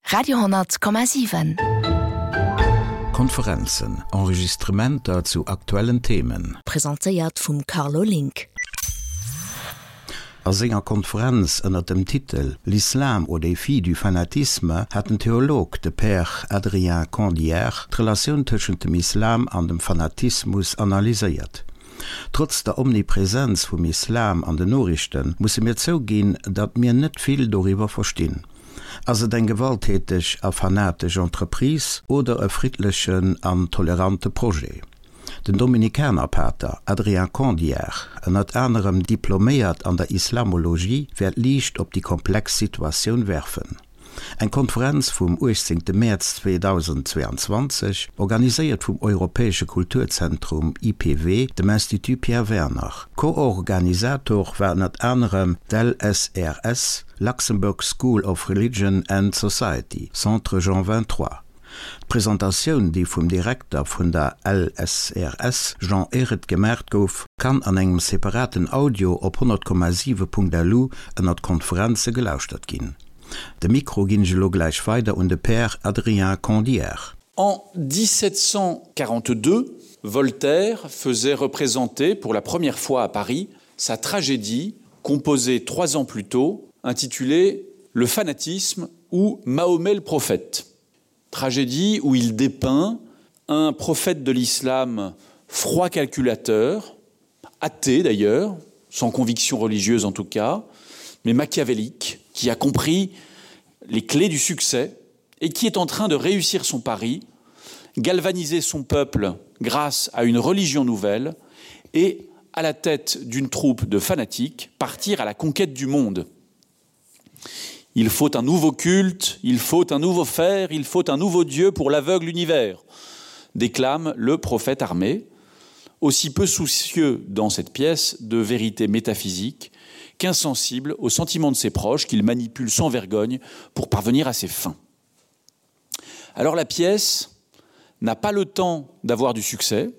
Radio,7. Konferenzen, Enregistrementer zu aktuellen Themen. Presentéiert vum Carlo Link. A senger Konferenz ënner dem Titel L'islam au défi du fanatisme hat den Theolog, de Père Adrien Condière, d'Relatioun tëschent dem Islam an dem Fanatismus analyséiert. Trotz der Omnipresenz vum Islam an den Noriichte musse mir zouginn, datt mir net vill doriwwer verstinn. Ass et eng gewalttäteg a fanatesch Entreprise oder e friddlechen an tolerante Projet? Den Dominikanerpater Adrien Condière, ënnert anerem diploméiert an der Islamologie, wäert Liicht op déi komplex Situatioun werfen. Eng Konferenz vum 18 Mäerz 2022, organiséiert vum Europäesche Kulturzentrum IPW, dem Institut Pierre Werner. Co-Organisator war ënnert anerem d'LSRS, Luxembourg School of Religion and Society, Centre Jean 23. D'Presentatioun, déi vum Direkter vun der LSRS, Jean Ehret, gemaacht gouf, kann an engem separaten Audio op 100,7.lu ënnert Konferenze gelauschtert ginn. De Mikro ginn ech elo gläich weider un de Père Adrien Condière. En 1742, Voltaire faisait représenter pour la première fois à Paris sa tragédie composée trois ans plus tôt, intitulée Le fanatisme ou Mahomet le prophète. Tragédie où il dépeint un prophète de l'islam froid calculateur, athée d'ailleurs, sans conviction religieuse en tout cas, mais machiavélique, qui a compris les clés du succès et qui est en train de réussir son pari, galvaniser son peuple grâce à une religion nouvelle et à la tête d'une troupe de fanatiques partir à la conquête du monde. Il faut un nouveau culte, il faut un nouveau fer, il faut un nouveau dieu pour l'aveugle univers, déclame le prophète armé, aussi peu soucieux dans cette pièce de vérité métaphysique qu'insensible aux sentiments de ses proches qu'il manipule sans vergogne pour parvenir à ses fins. Alors la pièce n'a pas le temps d'avoir du succès,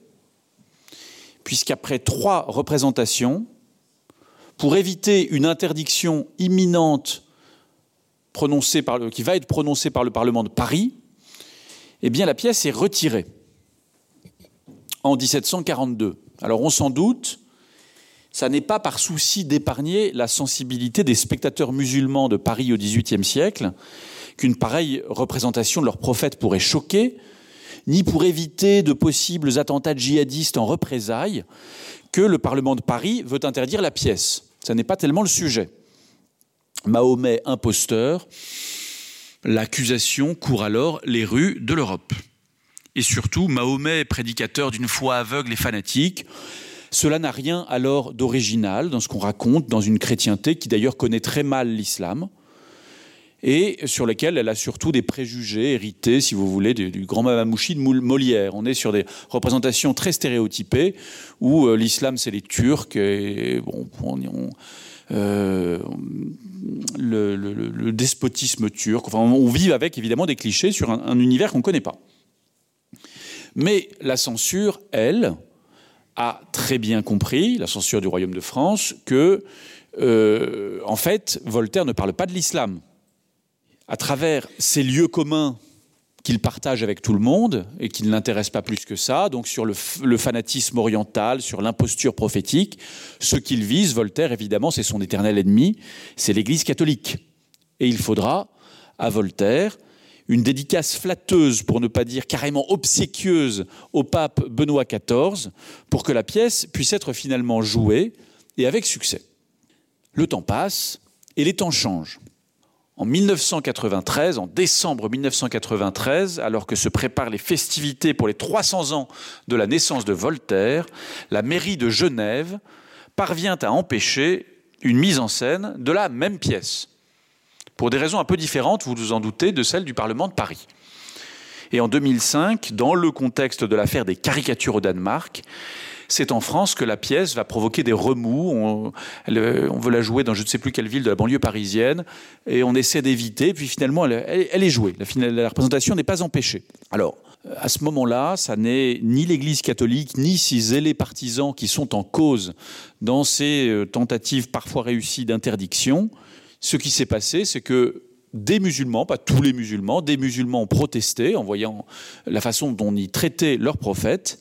puisqu'après trois représentations, pour éviter une interdiction imminente prononcée par le, qui va être prononcée par le Parlement de Paris, eh bien la pièce est retirée en 1742. Alors on s'en doute, ça n'est pas par souci d'épargner la sensibilité des spectateurs musulmans de Paris au XVIIIe siècle qu'une pareille représentation de leur prophète pourrait choquer, ni pour éviter de possibles attentats djihadistes en représailles que le Parlement de Paris veut interdire la pièce. Ça n'est pas tellement le sujet. Mahomet imposteur, l'accusation court alors les rues de l'Europe. Et surtout, Mahomet prédicateur d'une foi aveugle et fanatique, cela n'a rien alors d'original dans ce qu'on raconte dans une chrétienté qui d'ailleurs connaît très mal l'islam et sur lequel elle a surtout des préjugés hérités, si vous voulez, du, du grand Mamamouchi de Molière. On est sur des représentations très stéréotypées où euh, l'islam c'est les Turcs et bon, on, on, euh, le, le, le despotisme turc. Enfin, on vit avec évidemment des clichés sur un, un univers qu'on ne connaît pas. Mais la censure, elle, a très bien compris, la censure du royaume de France, que euh, en fait, Voltaire ne parle pas de l'islam. À travers ces lieux communs qu'il partage avec tout le monde et qui ne l'intéresse pas plus que ça, donc sur le, le fanatisme oriental, sur l'imposture prophétique, ce qu'il vise, Voltaire, évidemment, c'est son éternel ennemi, c'est l'Église catholique. Et il faudra à Voltaire une dédicace flatteuse, pour ne pas dire carrément obséquieuse, au pape Benoît XIV, pour que la pièce puisse être finalement jouée et avec succès. Le temps passe et les temps changent. En 1993, en décembre 1993, alors que se préparent les festivités pour les 300 ans de la naissance de Voltaire, la mairie de Genève parvient à empêcher une mise en scène de la même pièce pour des raisons un peu différentes, vous vous en doutez, de celle du Parlement de Paris. Et en 2005, dans le contexte de l'affaire des caricatures au Danemark, c'est en France que la pièce va provoquer des remous. On, elle, on veut la jouer dans je ne sais plus quelle ville de la banlieue parisienne et on essaie d'éviter. Puis finalement, elle, elle, elle est jouée. La, la représentation n'est pas empêchée. Alors, à ce moment-là, ça n'est ni l'Église catholique ni ses zélés partisans qui sont en cause dans ces euh, tentatives parfois réussies d'interdiction. Ce qui s'est passé, c'est que. des musulmans, pas tous les musulmans, des musulmans ont protesté en voyant la façon dont on y traitait leurs prophètes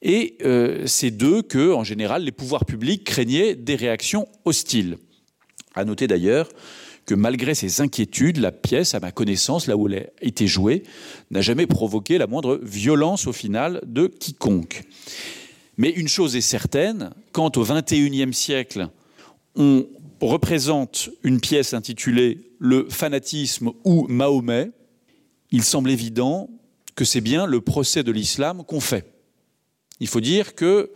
et euh, c'est d'eux que, en général, les pouvoirs publics craignaient des réactions hostiles. À noter d'ailleurs que malgré ces inquiétudes, la pièce, à ma connaissance, là où elle a été jouée, n'a jamais provoqué la moindre violence au final de quiconque. Mais une chose est certaine, quand au XXIe siècle, on représente une pièce intitulée Le fanatisme ou Mahomet, il semble évident que c'est bien le procès de l'islam qu'on fait. Il faut dire que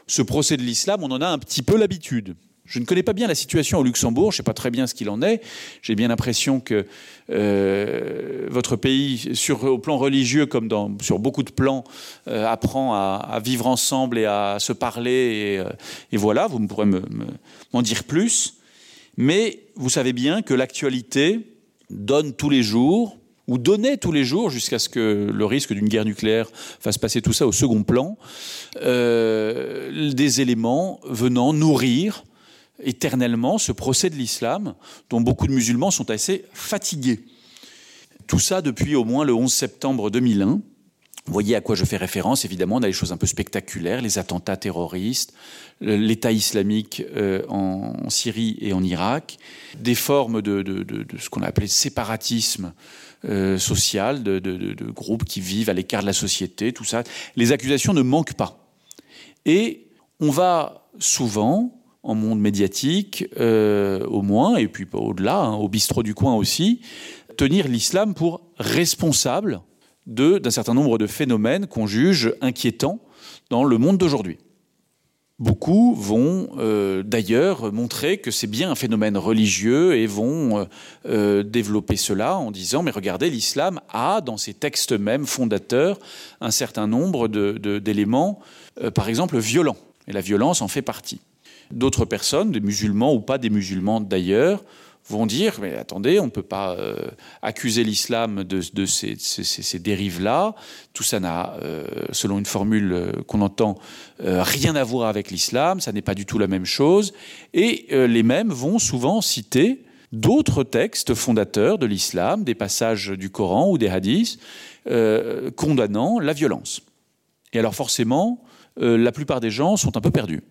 ce procès de l'islam, on en a un petit peu l'habitude. Je ne connais pas bien la situation au Luxembourg, je ne sais pas très bien ce qu'il en est. J'ai bien l'impression que euh, votre pays, sur, au plan religieux comme dans, sur beaucoup de plans, euh, apprend à, à vivre ensemble et à se parler. Et, euh, et voilà, vous pourrez m'en me, me, dire plus. Mais vous savez bien que l'actualité donne tous les jours ou donnait tous les jours jusqu'à ce que le risque d'une guerre nucléaire fasse passer tout ça au second plan, euh, des éléments venant nourrir éternellement ce procès de l'islam dont beaucoup de musulmans sont assez fatigués. Tout ça depuis au moins le 11 septembre 2001. Vous voyez à quoi je fais référence, évidemment, on a des choses un peu spectaculaires, les attentats terroristes, l'État islamique euh, en Syrie et en Irak, des formes de, de, de, de ce qu'on a appelé séparatisme euh, social, de, de, de, de groupes qui vivent à l'écart de la société, tout ça. Les accusations ne manquent pas. Et on va souvent, en monde médiatique euh, au moins et puis au-delà au bistrot du coin aussi tenir l'islam pour responsable d'un certain nombre de phénomènes qu'on juge inquiétants dans le monde d'aujourd'hui. Beaucoup vont euh, d'ailleurs montrer que c'est bien un phénomène religieux et vont euh, euh, développer cela en disant mais regardez l'islam a dans ses textes mêmes fondateurs un certain nombre d'éléments euh, par exemple violents et la violence en fait partie. D'autres personnes, des musulmans ou pas des musulmans d'ailleurs, vont dire mais attendez, on ne peut pas euh, accuser l'islam de, de ces, ces, ces, ces dérives là tout ça n'a euh, selon une formule euh, qu'on entend euh, rien à voir avec l'islam ça n'est pas du tout la même chose et euh, les mêmes vont souvent citer d'autres textes fondateurs de l'islam des passages du coran ou des hadiths euh, condamnant la violence et alors forcément euh, la plupart des gens sont un peu perdus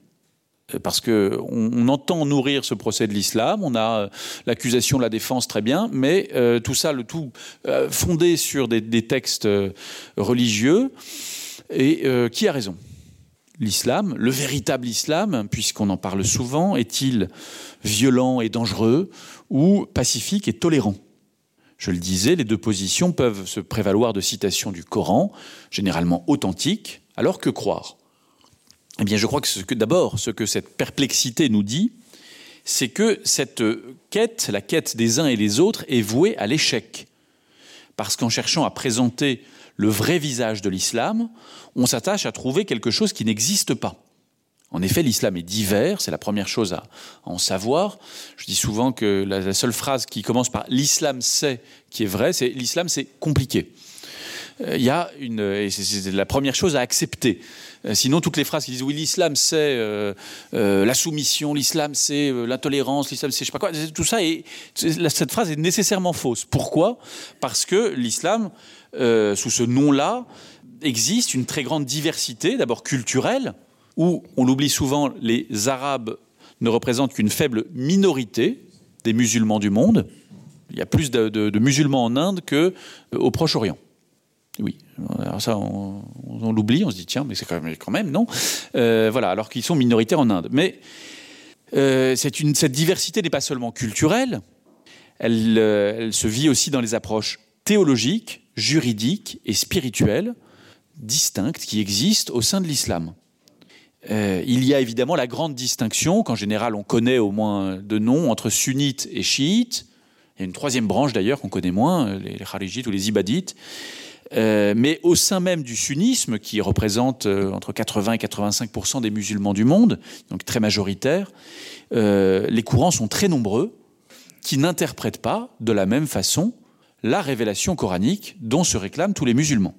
Euh, parce que on, on entend nourrir ce procès de l'islam on a euh, l'accusation de la défense très bien mais euh, tout ça le tout euh, fondé sur des, des textes euh, religieux et euh, qui a raison l'islam le véritable islam puisqu'on en parle souvent est-il violent et dangereux ou pacifique et tolérant je le disais les deux positions peuvent se prévaloir de citations du coran généralement authentiques alors que croire Eh bien, je crois que ce que d'abord ce que cette perplexité nous dit, c'est que cette quête, la quête des uns et les autres est vouée à l'échec. Parce qu'en cherchant à présenter le vrai visage de l'islam, on s'attache à trouver quelque chose qui n'existe pas. En effet, l'islam est divers, c'est la première chose à en savoir. Je dis souvent que la, la seule phrase qui commence par l'islam c'est qui est vrai, c'est l'islam c'est compliqué. Euh, il y a une et c'est la première chose à accepter. Euh, sinon toutes les phrases qui disent oui l'islam c'est euh, euh, la soumission, l'islam c'est euh, l'intolérance, l'islam c'est je sais pas quoi, tout ça et cette phrase est nécessairement fausse. Pourquoi Parce que l'islam euh, sous ce nom là existe une très grande diversité d'abord culturelle où on l'oublie souvent les arabes ne représentent qu'une faible minorité des musulmans du monde. Il y a plus de, de, de musulmans en Inde que euh, au Proche-Orient. Oui, alors ça on, on l'oublie, on se dit tiens mais c'est quand même, quand même non euh, voilà alors qu'ils sont minoritaires en Inde. Mais euh, une, cette diversité n'est pas seulement culturelle, elle, euh, elle se vit aussi dans les approches théologiques, juridiques et spirituelles distinctes qui existent au sein de l'islam. Euh, il y a évidemment la grande distinction qu'en général on connaît au moins de noms entre sunnites et chiites. Il y a une troisième branche d'ailleurs qu'on connaît moins, les, les kharijites ou les ibadites. Euh, mais au sein même du sunnisme qui représente euh, entre 80 et 85 des musulmans du monde, donc très majoritaire, euh, les courants sont très nombreux qui n'interprètent pas de la même façon la révélation coranique dont se réclament tous les musulmans.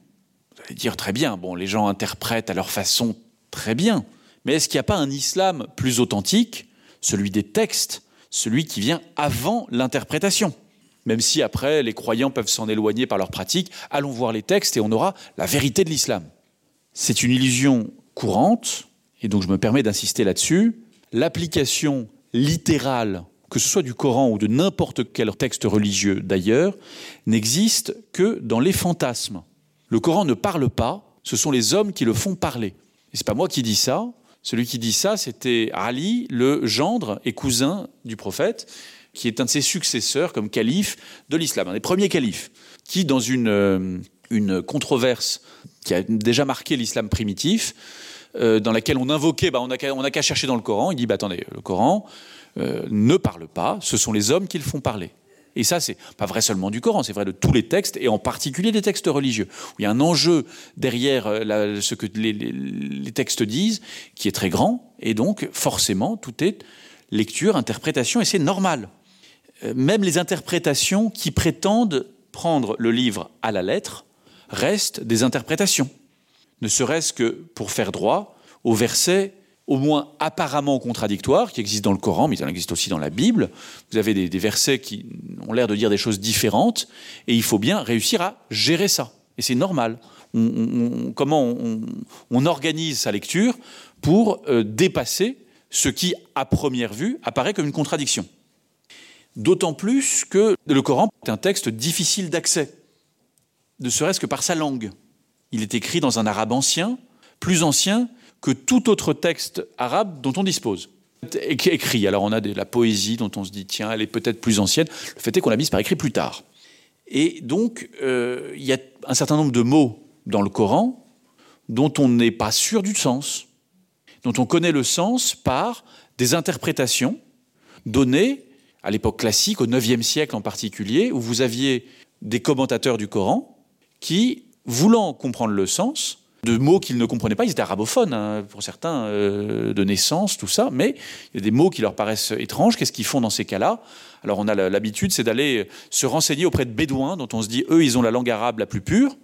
Vous allez dire très bien, bon les gens interprètent à leur façon très bien, mais est-ce qu'il n'y a pas un islam plus authentique, celui des textes, celui qui vient avant l'interprétation? Même si après les croyants peuvent s'en éloigner par leur pratique, allons voir les textes et on aura la vérité de l'islam. C'est une illusion courante, et donc je me permets d'insister là-dessus, l'application littérale, que ce soit du Coran ou de n'importe quel texte religieux d'ailleurs, n'existe que dans les fantasmes. Le Coran ne parle pas, ce sont les hommes qui le font parler. Et c'est pas moi qui dis ça, celui qui dit ça, c'était Ali, le gendre et cousin du prophète, qui est un de ses successeurs comme calife de l'islam, un des premiers califes, qui dans une, euh, une controverse qui a déjà marqué l'islam primitif, euh, dans laquelle on invoquait bah, on n'a qu'à chercher dans le Coran, il dit bah, attendez, le Coran euh, ne parle pas, ce sont les hommes qui le font parler. Et ça, c'est pas vrai seulement du Coran, c'est vrai de tous les textes, et en particulier des textes religieux, où il y a un enjeu derrière euh, la, ce que les, les, les textes disent, qui est très grand, et donc forcément, tout est lecture, interprétation, et c'est normal. Euh, même les interprétations qui prétendent prendre le livre à la lettre restent des interprétations, ne serait-ce que pour faire droit au verset au moins apparemment contradictoires qui existent dans le Coran, mais il en existe aussi dans la Bible. Vous avez des, des versets qui ont l'air de dire des choses différentes et il faut bien réussir à gérer ça. Et c'est normal. On, on, on, comment on, on organise sa lecture pour euh, dépasser ce qui, à première vue, apparaît comme une contradiction. D'autant plus que le Coran est un texte difficile d'accès, ne serait-ce que par sa langue. Il est écrit dans un arabe ancien, plus ancien que tout autre texte arabe dont on dispose. Écrit, alors on a de la poésie dont on se dit tiens, elle est peut-être plus ancienne. Le fait est qu'on l'a mise par écrit plus tard. Et donc euh, il y a un certain nombre de mots dans le Coran dont on n'est pas sûr du sens, dont on connaît le sens par des interprétations données à l'époque classique, au IXe siècle en particulier, où vous aviez des commentateurs du Coran qui, voulant comprendre le sens, de mots qu'ils ne comprenaient pas, ils étaient arabophones hein, pour certains euh, de naissance, tout ça, mais il y a des mots qui leur paraissent étranges, qu'est-ce qu'ils font dans ces cas-là Alors on a l'habitude, c'est d'aller se renseigner auprès de bédouins dont on se dit eux ils ont la langue arabe la plus pure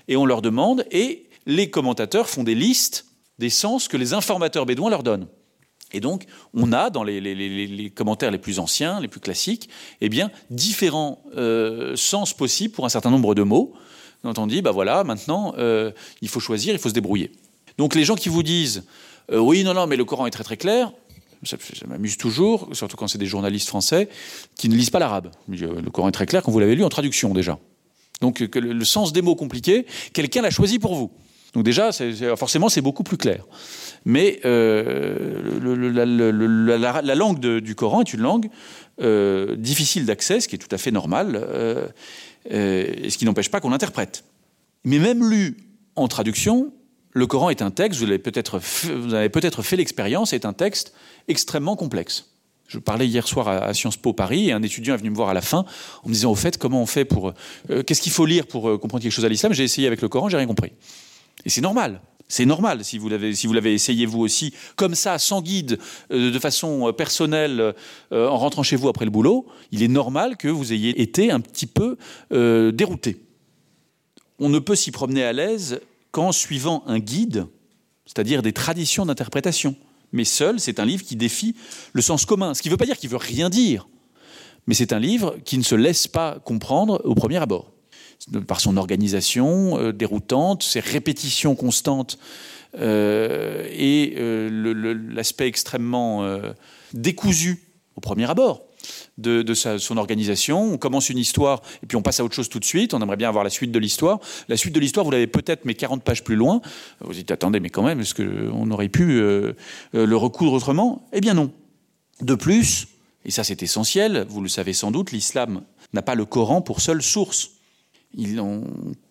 et on leur demande et les commentateurs font des listes des sens que les informateurs bédouins leur donnent. Et donc on a dans les, les, les, les commentaires les plus anciens, les plus classiques, eh bien différents euh, sens possibles pour un certain nombre de mots dont on dit bah voilà maintenant euh, il faut choisir, il faut se débrouiller. Donc les gens qui vous disent euh, oui non non mais le Coran est très très clair, ça, ça m'amuse toujours, surtout quand c'est des journalistes français qui ne lisent pas l'arabe. Euh, le Coran est très clair quand vous l'avez lu en traduction déjà. Donc que le, le sens des mots compliqués, quelqu'un l'a choisi pour vous. Donc déjà c'est, c'est, forcément c'est beaucoup plus clair. Mais euh, le, le, la, le, la, la langue de, du Coran est une langue euh, difficile d'accès, ce qui est tout à fait normal. Euh, euh, et ce qui n'empêche pas qu'on l'interprète. Mais même lu en traduction, le Coran est un texte, vous l'avez peut-être vous avez peut-être fait l'expérience, est un texte extrêmement complexe. Je parlais hier soir à, à Sciences Po Paris et un étudiant est venu me voir à la fin en me disant au fait comment on fait pour euh, qu'est-ce qu'il faut lire pour euh, comprendre quelque chose à l'islam, j'ai essayé avec le Coran, j'ai rien compris. Et c'est normal. C'est normal si vous l'avez si vous l'avez essayé vous aussi comme ça sans guide euh, de façon euh, personnelle euh, en rentrant chez vous après le boulot, il est normal que vous ayez été un petit peu euh, dérouté. On ne peut s'y promener à l'aise qu'en suivant un guide, c'est-à-dire des traditions d'interprétation. Mais seul, c'est un livre qui défie le sens commun, ce qui ne veut pas dire qu'il veut rien dire, mais c'est un livre qui ne se laisse pas comprendre au premier abord par son organisation euh, déroutante, ses répétitions constantes euh, et euh, l'aspect extrêmement euh, décousu au premier abord de, de sa, son organisation. On commence une histoire et puis on passe à autre chose tout de suite. On aimerait bien avoir la suite de l'histoire. La suite de l'histoire, vous l'avez peut-être mais 40 pages plus loin. Vous dites attendez, mais quand même, est-ce qu'on aurait pu euh, euh, le recoudre autrement Eh bien non. De plus, et ça c'est essentiel, vous le savez sans doute, l'islam n'a pas le Coran pour seule source. Il en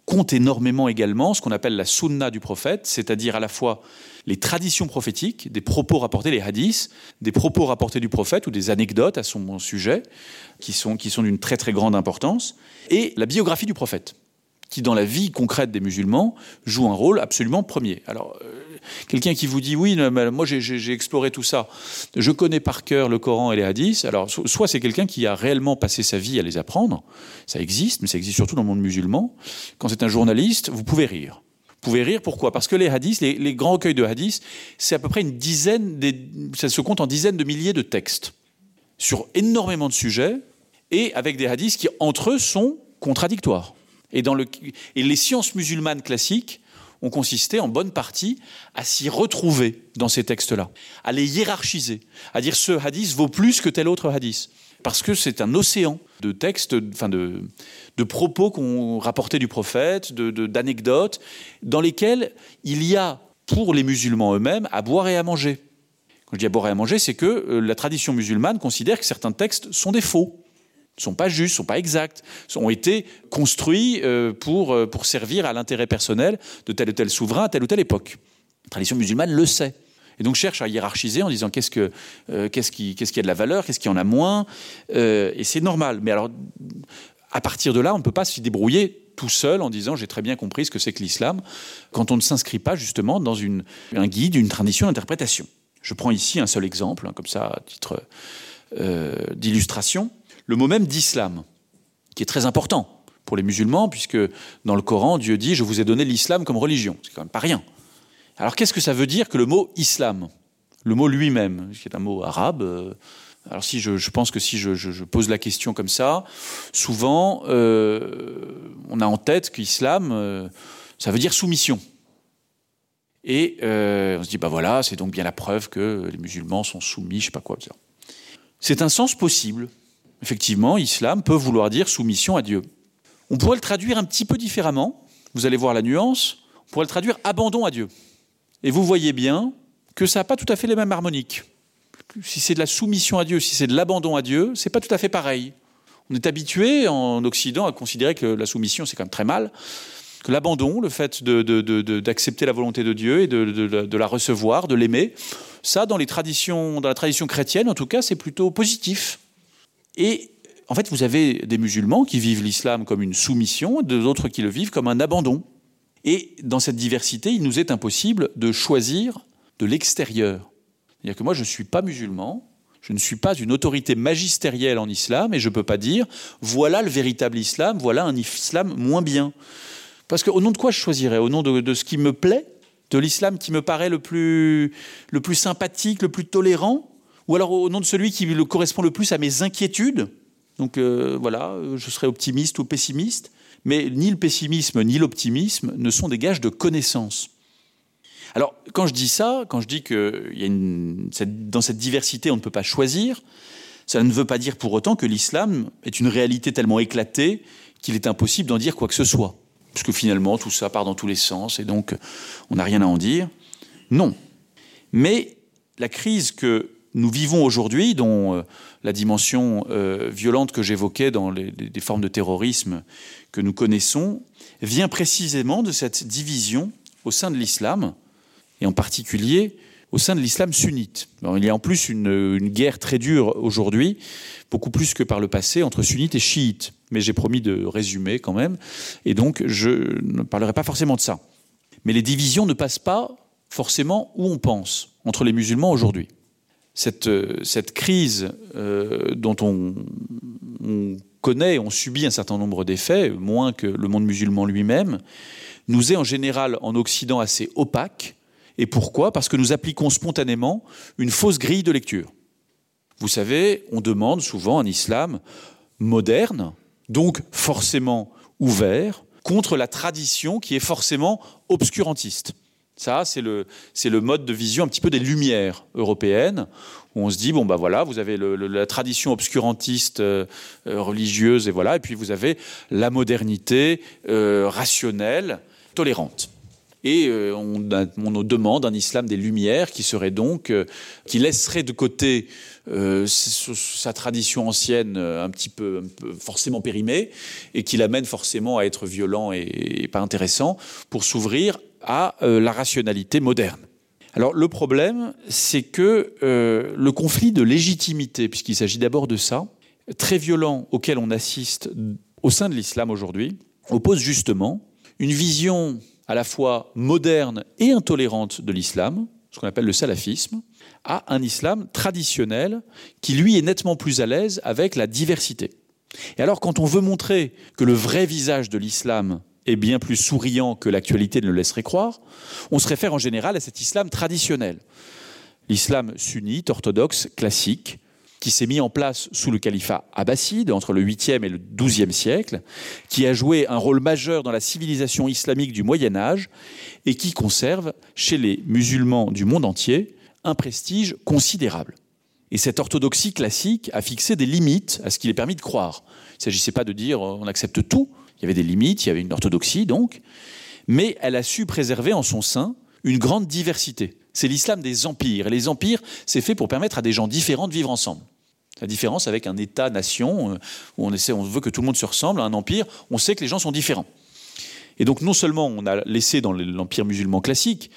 compte énormément également ce qu'on appelle la sunna du prophète, c'est-à-dire à la fois les traditions prophétiques, des propos rapportés, les hadiths, des propos rapportés du prophète ou des anecdotes à son sujet qui sont, qui sont d'une très très grande importance, et la biographie du prophète qui dans la vie concrète des musulmans joue un rôle absolument premier. Alors euh, quelqu'un qui vous dit oui moi j'ai exploré tout ça, je connais par cœur le Coran et les hadiths, alors so soit c'est quelqu'un qui a réellement passé sa vie à les apprendre, ça existe, mais ça existe surtout dans le monde musulman. Quand c'est un journaliste, vous pouvez rire. Vous pouvez rire pourquoi parce que les hadiths les, les grands recueils de hadiths c'est à peu près une dizaine des, ça se compte en dizaines de milliers de textes sur énormément de sujets. Et avec des hadiths qui entre eux sont contradictoires. Et, dans le, et les sciences musulmanes classiques ont consisté en bonne partie à s'y retrouver dans ces textes-là, à les hiérarchiser, à dire ce hadith vaut plus que tel autre hadith. Parce que c'est un océan de textes, enfin de, de propos qu'on rapportait du prophète, d'anecdotes, dans lesquels il y a pour les musulmans eux-mêmes à boire et à manger. Quand je dis à boire et à manger, c'est que euh, la tradition musulmane considère que certains textes sont des faux ne sont pas justes, sont pas exacts, ont été construits euh, pour, euh, pour servir à l'intérêt personnel de tel ou tel souverain à telle ou telle époque. La tradition musulmane le sait. Et donc cherche à hiérarchiser en disant qu'est-ce que euh, qu'est-ce qui qu'est-ce qui a de la valeur, qu'est-ce qui en a moins euh, et c'est normal. Mais alors à partir de là, on ne peut pas s'y débrouiller tout seul en disant j'ai très bien compris ce que c'est que l'islam quand on ne s'inscrit pas justement dans une un guide, une tradition d'interprétation. Je prends ici un seul exemple hein, comme ça à titre euh, d'illustration le mot même d'islam, qui est très important pour les musulmans, puisque dans le Coran, Dieu dit je vous ai donné l'islam comme religion. C'est quand même pas rien. Alors qu'est-ce que ça veut dire que le mot islam Le mot lui-même, qui est un mot arabe. Euh, alors si je, je pense que si je, je, je pose la question comme ça, souvent euh, on a en tête qu'islam, euh, ça veut dire soumission. Et euh, on se dit bah voilà, c'est donc bien la preuve que les musulmans sont soumis, je sais pas quoi. C'est un sens possible. Effectivement, islam peut vouloir dire soumission à Dieu. On pourrait le traduire un petit peu différemment, vous allez voir la nuance, on pourrait le traduire abandon à Dieu. Et vous voyez bien que ça n'a pas tout à fait les mêmes harmoniques. Si c'est de la soumission à Dieu, si c'est de l'abandon à Dieu, c'est pas tout à fait pareil. On est habitué en Occident à considérer que la soumission c'est quand même très mal, que l'abandon, le fait d'accepter la volonté de Dieu et de, de, de, de la recevoir, de l'aimer, ça dans les traditions dans la tradition chrétienne en tout cas, c'est plutôt positif. Et en fait, vous avez des musulmans qui vivent l'islam comme une soumission, d'autres qui le vivent comme un abandon. Et dans cette diversité, il nous est impossible de choisir de l'extérieur. C'est-à-dire que moi, je ne suis pas musulman, je ne suis pas une autorité magistérielle en islam et je ne peux pas dire voilà le véritable islam, voilà un islam moins bien. Parce qu'au nom de quoi je choisirais Au nom de, de ce qui me plaît de l'islam qui me paraît le plus, le plus sympathique, le plus tolérant ou alors au nom de celui qui le correspond le plus à mes inquiétudes. Donc euh, voilà, je serais optimiste ou pessimiste, mais ni le pessimisme ni l'optimisme ne sont des gages de connaissance. Alors quand je dis ça, quand je dis que il y a une, cette, dans cette diversité on ne peut pas choisir, ça ne veut pas dire pour autant que l'islam est une réalité tellement éclatée qu'il est impossible d'en dire quoi que ce soit. Puisque finalement tout ça part dans tous les sens et donc on n'a rien à en dire. Non. Mais la crise que nous vivons aujourd'hui, dont euh, la dimension euh, violente que j'évoquais dans les, les, les formes de terrorisme que nous connaissons, vient précisément de cette division au sein de l'islam, et en particulier au sein de l'islam sunnite. Alors, il y a en plus une, une guerre très dure aujourd'hui, beaucoup plus que par le passé, entre sunnites et chiites. Mais j'ai promis de résumer quand même, et donc je ne parlerai pas forcément de ça. Mais les divisions ne passent pas forcément où on pense entre les musulmans aujourd'hui cette, euh, cette crise euh, dont on, on connaît, on subit un certain nombre d'effets, moins que le monde musulman lui-même, nous est en général en Occident assez opaque. Et pourquoi Parce que nous appliquons spontanément une fausse grille de lecture. Vous savez, on demande souvent un islam moderne, donc forcément ouvert, contre la tradition qui est forcément obscurantiste. Ça, c'est le, le mode de vision un petit peu des lumières européennes, où on se dit, bon, ben voilà, vous avez le, le, la tradition obscurantiste euh, euh, religieuse, et voilà, et puis vous avez la modernité euh, rationnelle, tolérante. Et euh, on, on demande un islam des lumières qui serait donc euh, qui laisserait de côté euh, sa tradition ancienne euh, un petit peu, un peu forcément périmée et qui l'amène forcément à être violent et, et pas intéressant pour s'ouvrir à euh, la rationalité moderne. Alors le problème, c'est que euh, le conflit de légitimité, puisqu'il s'agit d'abord de ça, très violent auquel on assiste au sein de l'islam aujourd'hui, oppose justement une vision à la fois moderne et intolérante de l'islam, ce qu'on appelle le salafisme, à un islam traditionnel qui lui est nettement plus à l'aise avec la diversité. Et alors quand on veut montrer que le vrai visage de l'islam est bien plus souriant que l'actualité ne le laisserait croire, on se réfère en général à cet islam traditionnel. L'islam sunnite, orthodoxe, classique. qui s'est mis en place sous le califat abbasside entre le 8e et le 12e siècle, qui a joué un rôle majeur dans la civilisation islamique du Moyen Âge et qui conserve chez les musulmans du monde entier un prestige considérable. Et cette orthodoxie classique a fixé des limites à ce qu'il est permis de croire. Il ne s'agissait pas de dire euh, on accepte tout, il y avait des limites, il y avait une orthodoxie donc, mais elle a su préserver en son sein une grande diversité. C'est l'islam des empires et les empires c'est fait pour permettre à des gens différents de vivre ensemble. La différence avec un état nation euh, où on essaie on veut que tout le monde se ressemble à un empire, on sait que les gens sont différents. Et donc non seulement on a laissé dans l'empire musulman classique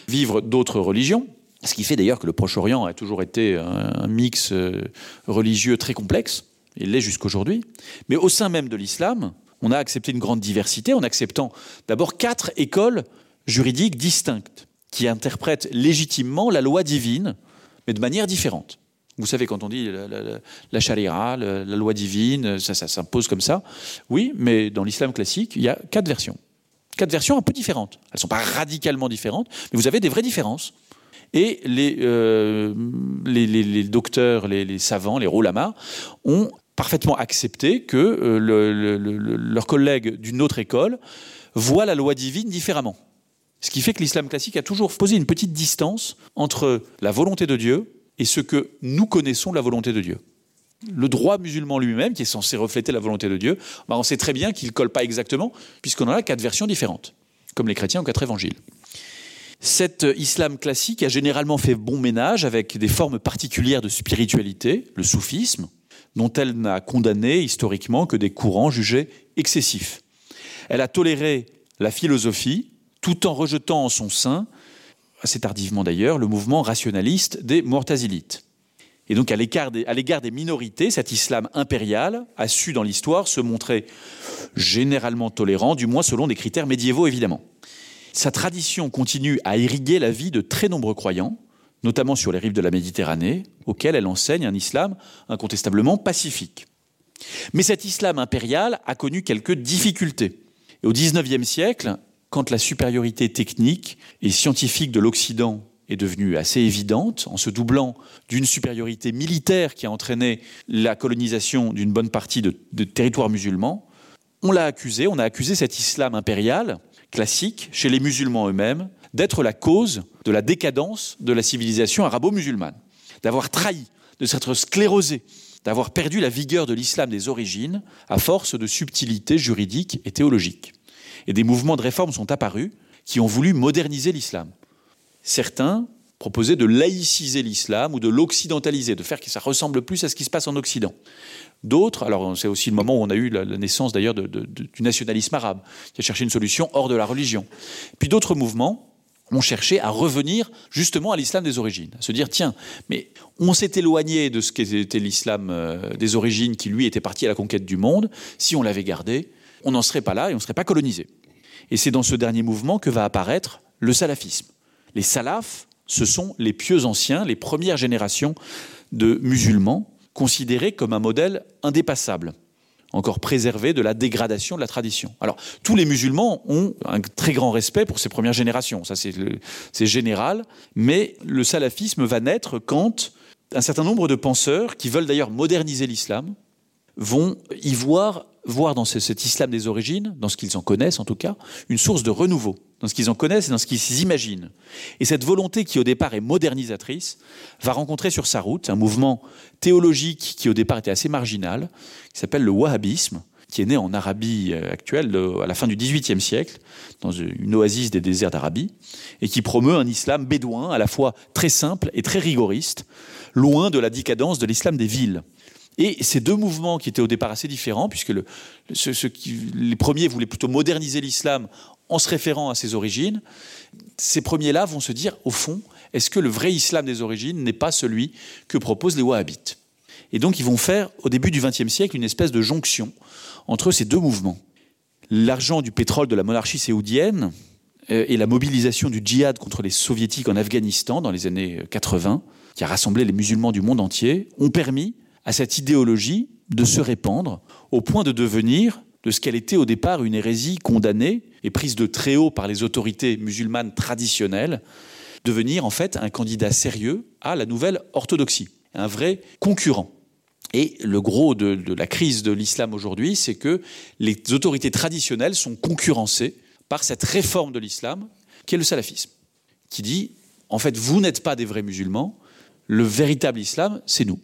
vivre d'autres religions, ce qui fait d'ailleurs que le Proche-Orient a toujours été un mix euh, religieux très complexe, il l'est jusqu'aujourd'hui, mais au sein même de l'islam, on a accepté une grande diversité en acceptant d'abord quatre écoles juridiques distinctes qui interprètent légitimement la loi divine, mais de manière différente. Vous savez quand on dit la, la, la, la charia, la, la loi divine, ça, ça s'impose comme ça. Oui, mais dans l'islam classique, il y a quatre versions. Quatre versions un peu différentes. Elles ne sont pas radicalement différentes, mais vous avez des vraies différences. Et les, euh, les, les, les docteurs, les, les savants, les roulamas ont parfaitement accepté que euh, le, le, le, leurs collègues d'une autre école voient la loi divine différemment. Ce qui fait que l'islam classique a toujours posé une petite distance entre la volonté de Dieu et ce que nous connaissons de la volonté de Dieu. Le droit musulman lui-même, qui est censé refléter la volonté de Dieu, ben on sait très bien qu'il ne colle pas exactement, puisqu'on en a quatre versions différentes, comme les chrétiens ont quatre évangiles. Cet islam classique a généralement fait bon ménage avec des formes particulières de spiritualité, le soufisme, dont elle n'a condamné historiquement que des courants jugés excessifs. Elle a toléré la philosophie, tout en rejetant en son sein, assez tardivement d'ailleurs, le mouvement rationaliste des Mortazilites. Et donc à l'égard des, des minorités, cet islam impérial a su dans l'histoire se montrer généralement tolérant, du moins selon des critères médiévaux évidemment. Sa tradition continue à irriguer la vie de très nombreux croyants, notamment sur les rives de la Méditerranée, auxquelles elle enseigne un islam incontestablement pacifique. Mais cet islam impérial a connu quelques difficultés. Et au XIXe siècle, quand la supériorité technique et scientifique de l'Occident est devenue assez évidente, en se doublant d'une supériorité militaire qui a entraîné la colonisation d'une bonne partie de, de territoires musulmans, on l'a accusé, on a accusé cet islam impérial classique chez les musulmans eux-mêmes d'être la cause de la décadence de la civilisation arabo-musulmane, d'avoir trahi, de s'être sclérosé, d'avoir perdu la vigueur de l'islam des origines à force de subtilités juridiques et théologiques. Et des mouvements de réforme sont apparus qui ont voulu moderniser l'islam. Certains proposaient de laïciser l'islam ou de l'occidentaliser, de faire que ça ressemble plus à ce qui se passe en Occident. D'autres, alors c'est aussi le moment où on a eu la, la naissance d'ailleurs de, de, de, du nationalisme arabe, qui a cherché une solution hors de la religion. Puis d'autres mouvements ont cherché à revenir justement à l'islam des origines, à se dire tiens, mais on s'est éloigné de ce qu'était l'islam euh, des origines qui lui était parti à la conquête du monde, si on l'avait gardé, on n'en serait pas là et on ne serait pas colonisé. Et c'est dans ce dernier mouvement que va apparaître le salafisme. Les salafs, ce sont les pieux anciens, les premières générations de musulmans considérés comme un modèle indépassable, encore préservé de la dégradation de la tradition. Alors tous les musulmans ont un très grand respect pour ces premières générations, ça c'est général, mais le salafisme va naître quand un certain nombre de penseurs qui veulent d'ailleurs moderniser l'islam vont y voir voir dans ce, cet islam des origines, dans ce qu'ils en connaissent en tout cas, une source de renouveau, dans ce qu'ils en connaissent et dans ce qu'ils imaginent. Et cette volonté qui au départ est modernisatrice va rencontrer sur sa route un mouvement théologique qui au départ était assez marginal, qui s'appelle le wahhabisme, qui est né en Arabie euh, actuelle à la fin du XVIIIe siècle, dans une oasis des déserts d'Arabie, et qui promeut un islam bédouin à la fois très simple et très rigoriste, loin de la décadence de l'islam des villes. Et ces deux mouvements qui étaient au départ assez différents, puisque le, ce, ce qui, les premiers voulaient plutôt moderniser l'islam en se référant à ses origines, ces premiers-là vont se dire, au fond, est-ce que le vrai islam des origines n'est pas celui que proposent les wahhabites Et donc ils vont faire, au début du XXe siècle, une espèce de jonction entre ces deux mouvements. L'argent du pétrole de la monarchie saoudienne euh, et la mobilisation du djihad contre les soviétiques en Afghanistan dans les années 80, qui a rassemblé les musulmans du monde entier, ont permis à cette idéologie de se répandre au point de devenir de ce qu'elle était au départ une hérésie condamnée et prise de très haut par les autorités musulmanes traditionnelles, devenir en fait un candidat sérieux à la nouvelle orthodoxie. un vrai concurrent. Et le gros de, de la crise de l'islam aujourd'hui, c'est que les autorités traditionnelles sont concurrencées par cette réforme de l'islam qui est le salafisme, qui dit en fait vous n'êtes pas des vrais musulmans, le véritable islam c'est nous.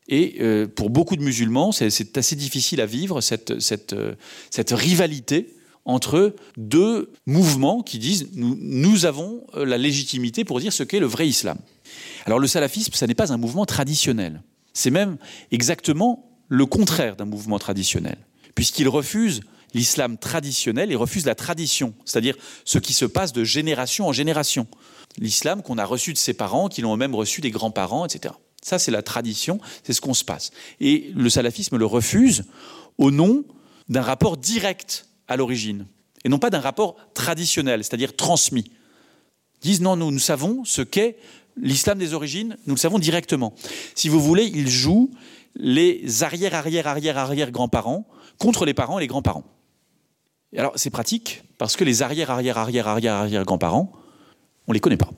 Et euh, pour beaucoup de musulmans, c'est assez difficile à vivre cette, cette, euh, cette rivalité entre deux mouvements qui disent nous, nous avons euh, la légitimité pour dire ce qu'est le vrai islam. Alors le salafisme, ça n'est pas un mouvement traditionnel. C'est même exactement le contraire d'un mouvement traditionnel, puisqu'il refuse l'islam traditionnel et refuse la tradition, c'est-à-dire ce qui se passe de génération en génération. L'islam qu'on a reçu de ses parents, qui l'ont même reçu des grands-parents, etc. Ça, c'est la tradition, c'est ce qu'on se passe. Et le salafisme le refuse au nom d'un rapport direct à l'origine, et non pas d'un rapport traditionnel, c'est-à-dire transmis. Ils disent non, nous, nous savons ce qu'est l'islam des origines, nous le savons directement. Si vous voulez, ils jouent les arrière arrière arrière arrière grands-parents contre les parents et les grands-parents. Et alors c'est pratique parce que les arrière arrière arrière arrière arrière grands-parents, on les connaît pas.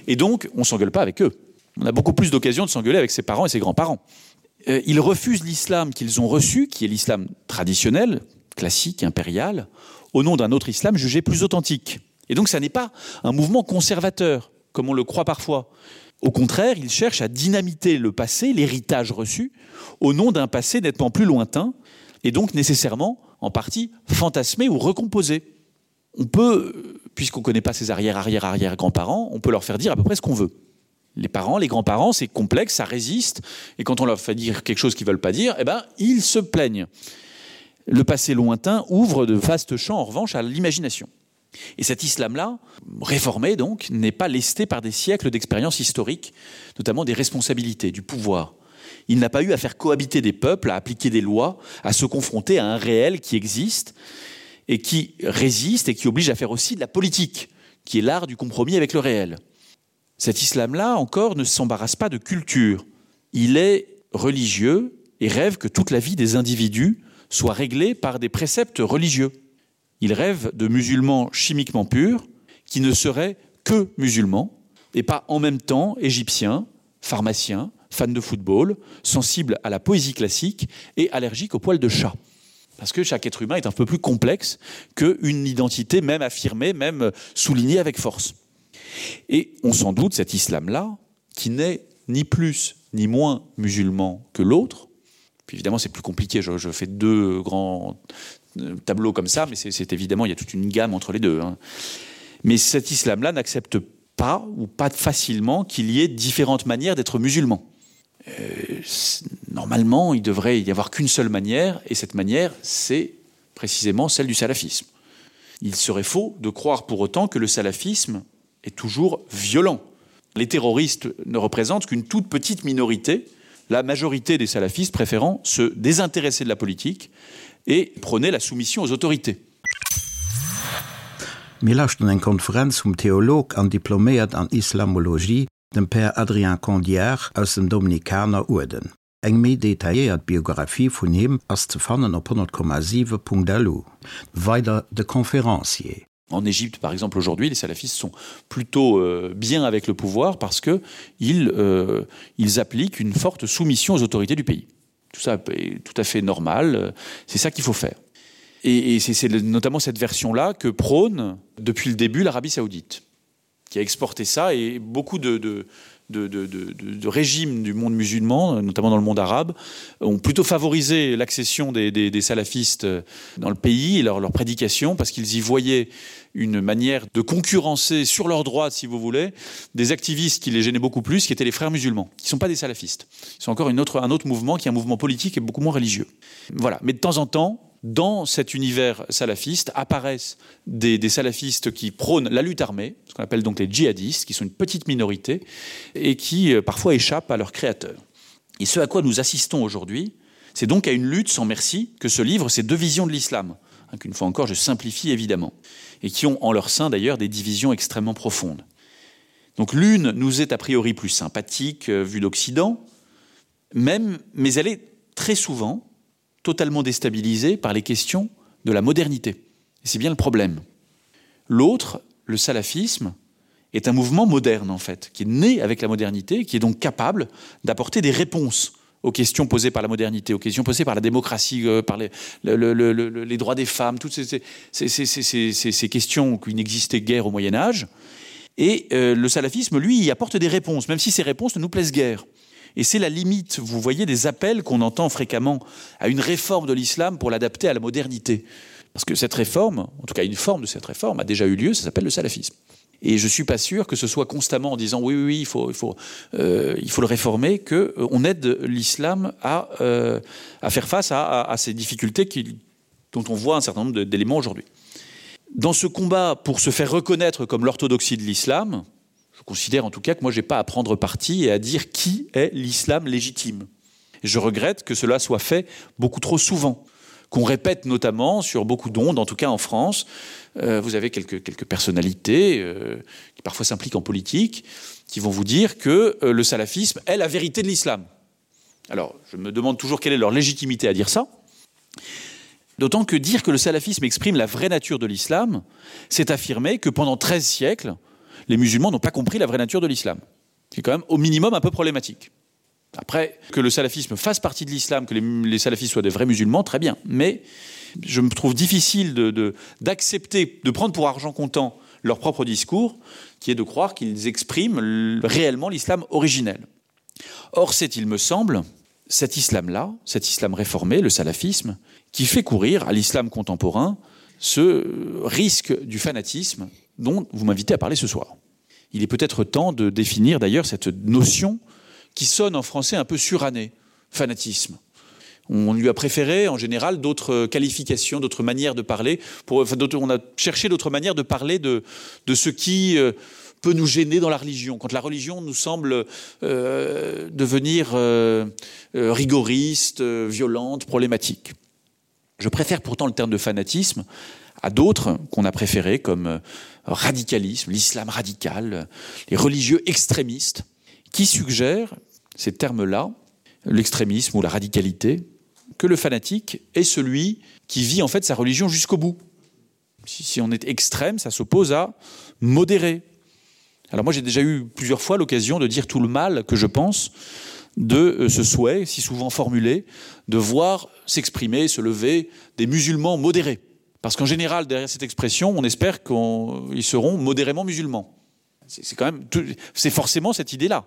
Et donc on s'engueule pas avec eux. On a beaucoup plus d'occasions de s'engueuler avec ses parents et ses grands-parents. Euh, ils refusent l'islam qu'ils ont reçu, qui est l'islam traditionnel, classique, impérial, au nom d'un autre islam jugé plus authentique. Et donc ça n'est pas un mouvement conservateur, comme on le croit parfois. Au contraire, ils cherchent à dynamiter le passé, l'héritage reçu, au nom d'un passé nettement plus lointain, et donc nécessairement en partie fantasmé ou recomposé. On peut, puisqu'on ne connaît pas ses arrière-arrière-arrière-grands-parents, on peut leur faire dire à peu près ce qu'on veut. Les parents, les grands-parents, c'est complexe, ça résiste, et quand on leur fait dire quelque chose qu'ils veulent pas dire, eh ben, ils se plaignent. Le passé lointain ouvre de vastes champs, en revanche, à l'imagination. Et cet islam-là, réformé donc, n'est pas lesté par des siècles d'expériences historiques, notamment des responsabilités, du pouvoir. Il n'a pas eu à faire cohabiter des peuples, à appliquer des lois, à se confronter à un réel qui existe et qui résiste et qui oblige à faire aussi de la politique, qui est l'art du compromis avec le réel. Cet islam-là, encore, ne s'embarrasse pas de culture. Il est religieux et rêve que toute la vie des individus soit réglée par des préceptes religieux. Il rêve de musulmans chimiquement purs qui ne seraient que musulmans et pas en même temps égyptiens, pharmaciens, fans de football, sensibles à la poésie classique et allergiques aux poils de chat. Parce que chaque être humain est un peu plus complexe qu'une identité même affirmée, même soulignée avec force. Et on s'en doute cet islam-là, qui n'est ni plus ni moins musulman que l'autre, puis évidemment c'est plus compliqué, je, je fais deux grands euh, tableaux comme ça, mais c'est évidemment il y a toute une gamme entre les deux. Hein. Mais cet islam-là n'accepte pas ou pas facilement qu'il y ait différentes manières d'être musulman. Euh, normalement, il devrait y avoir qu'une seule manière, et cette manière, c'est précisément celle du salafisme. Il serait faux de croire pour autant que le salafisme est toujours violent. Les terroristes ne représentent qu'une toute petite minorité, la majorité des salafistes préférant se désintéresser de la politique et prôner la soumission aux autorités. Mir lauschteren eng Konferenz vum Theolog an Diploméiert an Islamologie, dem Père Adrien Condiard aus dem Dominikaner Uerden. Eng méi detailléiert Biographie vun him ass ze fannen op 100,7.lu. Weider de Conférencier. En Égypte, par exemple, aujourd'hui, les salafistes sont plutôt euh, bien avec le pouvoir parce que ils, euh, ils appliquent une forte soumission aux autorités du pays. Tout ça est tout à fait normal, c'est ça qu'il faut faire. Et, et c'est notamment cette version-là que prône depuis le début l'Arabie saoudite, qui a exporté ça et beaucoup de, de, de, de, de, de régimes du monde musulman, notamment dans le monde arabe, ont plutôt favorisé l'accession des, des, des salafistes dans le pays et leur, leur prédication parce qu'ils y voyaient une manière de concurrencer sur leur droite, si vous voulez, des activistes qui les gênaient beaucoup plus, qui étaient les frères musulmans, qui ne sont pas des salafistes. Ils sont encore une autre, un autre mouvement qui est un mouvement politique et beaucoup moins religieux. Voilà. Mais de temps en temps, dans cet univers salafiste apparaissent des, des salafistes qui prônent la lutte armée, ce qu'on appelle donc les djihadistes, qui sont une petite minorité et qui euh, parfois échappent à leurs créateurs. Et ce à quoi nous assistons aujourd'hui, c'est donc à une lutte sans merci que se livrent ces deux visions de l'islam, hein, qu'une fois encore je simplifie évidemment, et qui ont en leur sein d'ailleurs des divisions extrêmement profondes. Donc l'une nous est a priori plus sympathique euh, vue d'Occident, même, mais elle est très souvent totalement déstabilisée par les questions de la modernité. Et c'est bien le problème. L'autre, le salafisme, est un mouvement moderne en fait, qui est né avec la modernité, qui est donc capable d'apporter des réponses aux questions posées par la modernité, aux questions posées par la démocratie, euh, par les, le, le, le, le, les droits des femmes, toutes ces, ces, ces, ces, ces, ces, ces questions qui n'existaient guère au Moyen Âge. Et euh, le salafisme, lui, y apporte des réponses, même si ces réponses ne nous plaisent guère. Et c'est la limite, vous voyez, des appels qu'on entend fréquemment à une réforme de l'islam pour l'adapter à la modernité. Parce que cette réforme, en tout cas une forme de cette réforme, a déjà eu lieu, ça s'appelle le salafisme. Et je suis pas sûr que ce soit constamment en disant oui, oui, oui il, faut, il, faut, euh, il faut le réformer que euh, on aide l'islam à, euh, à faire face à, à, à ces difficultés qui, dont on voit un certain nombre d'éléments aujourd'hui. Dans ce combat pour se faire reconnaître comme l'orthodoxie de l'islam, je considère en tout cas que moi j'ai pas à prendre parti et à dire qui est l'islam légitime. Et je regrette que cela soit fait beaucoup trop souvent qu'on répète notamment sur beaucoup d'ondes, en tout cas en France. Euh, vous avez quelques, quelques personnalités euh, qui parfois s'impliquent en politique, qui vont vous dire que euh, le salafisme est la vérité de l'islam. Alors, je me demande toujours quelle est leur légitimité à dire ça. D'autant que dire que le salafisme exprime la vraie nature de l'islam, c'est affirmer que pendant 13 siècles, les musulmans n'ont pas compris la vraie nature de l'islam. C'est quand même au minimum un peu problématique. Après, que le salafisme fasse partie de l'islam, que les, les salafistes soient des vrais musulmans, très bien. Mais je me trouve difficile d'accepter, de, de, de prendre pour argent comptant leur propre discours, qui est de croire qu'ils expriment réellement l'islam originel. Or, c'est, il me semble, cet islam-là, cet islam réformé, le salafisme, qui fait courir à l'islam contemporain ce risque du fanatisme dont vous m'invitez à parler ce soir. Il est peut-être temps de définir d'ailleurs cette notion qui sonne en français un peu suranné, fanatisme. On lui a préféré en général d'autres qualifications, d'autres manières de parler. Pour, enfin, on a cherché d'autres manières de parler de, de ce qui euh, peut nous gêner dans la religion. Quand la religion nous semble euh, devenir euh, euh, rigoriste, euh, violente, problématique. Je préfère pourtant le terme de fanatisme à d'autres qu'on a préféré comme euh, radicalisme, l'islam radical, les religieux extrémistes qui suggèrent ces termes-là, l'extrémisme ou la radicalité, que le fanatique est celui qui vit en fait sa religion jusqu'au bout. Si, si on est extrême, ça s'oppose à modérer. Alors moi j'ai déjà eu plusieurs fois l'occasion de dire tout le mal que je pense de euh, ce souhait, si souvent formulé, de voir s'exprimer, se lever des musulmans modérés. Parce qu'en général, derrière cette expression, on espère qu'ils seront modérément musulmans. C'est quand même c'est forcément cette idée-là.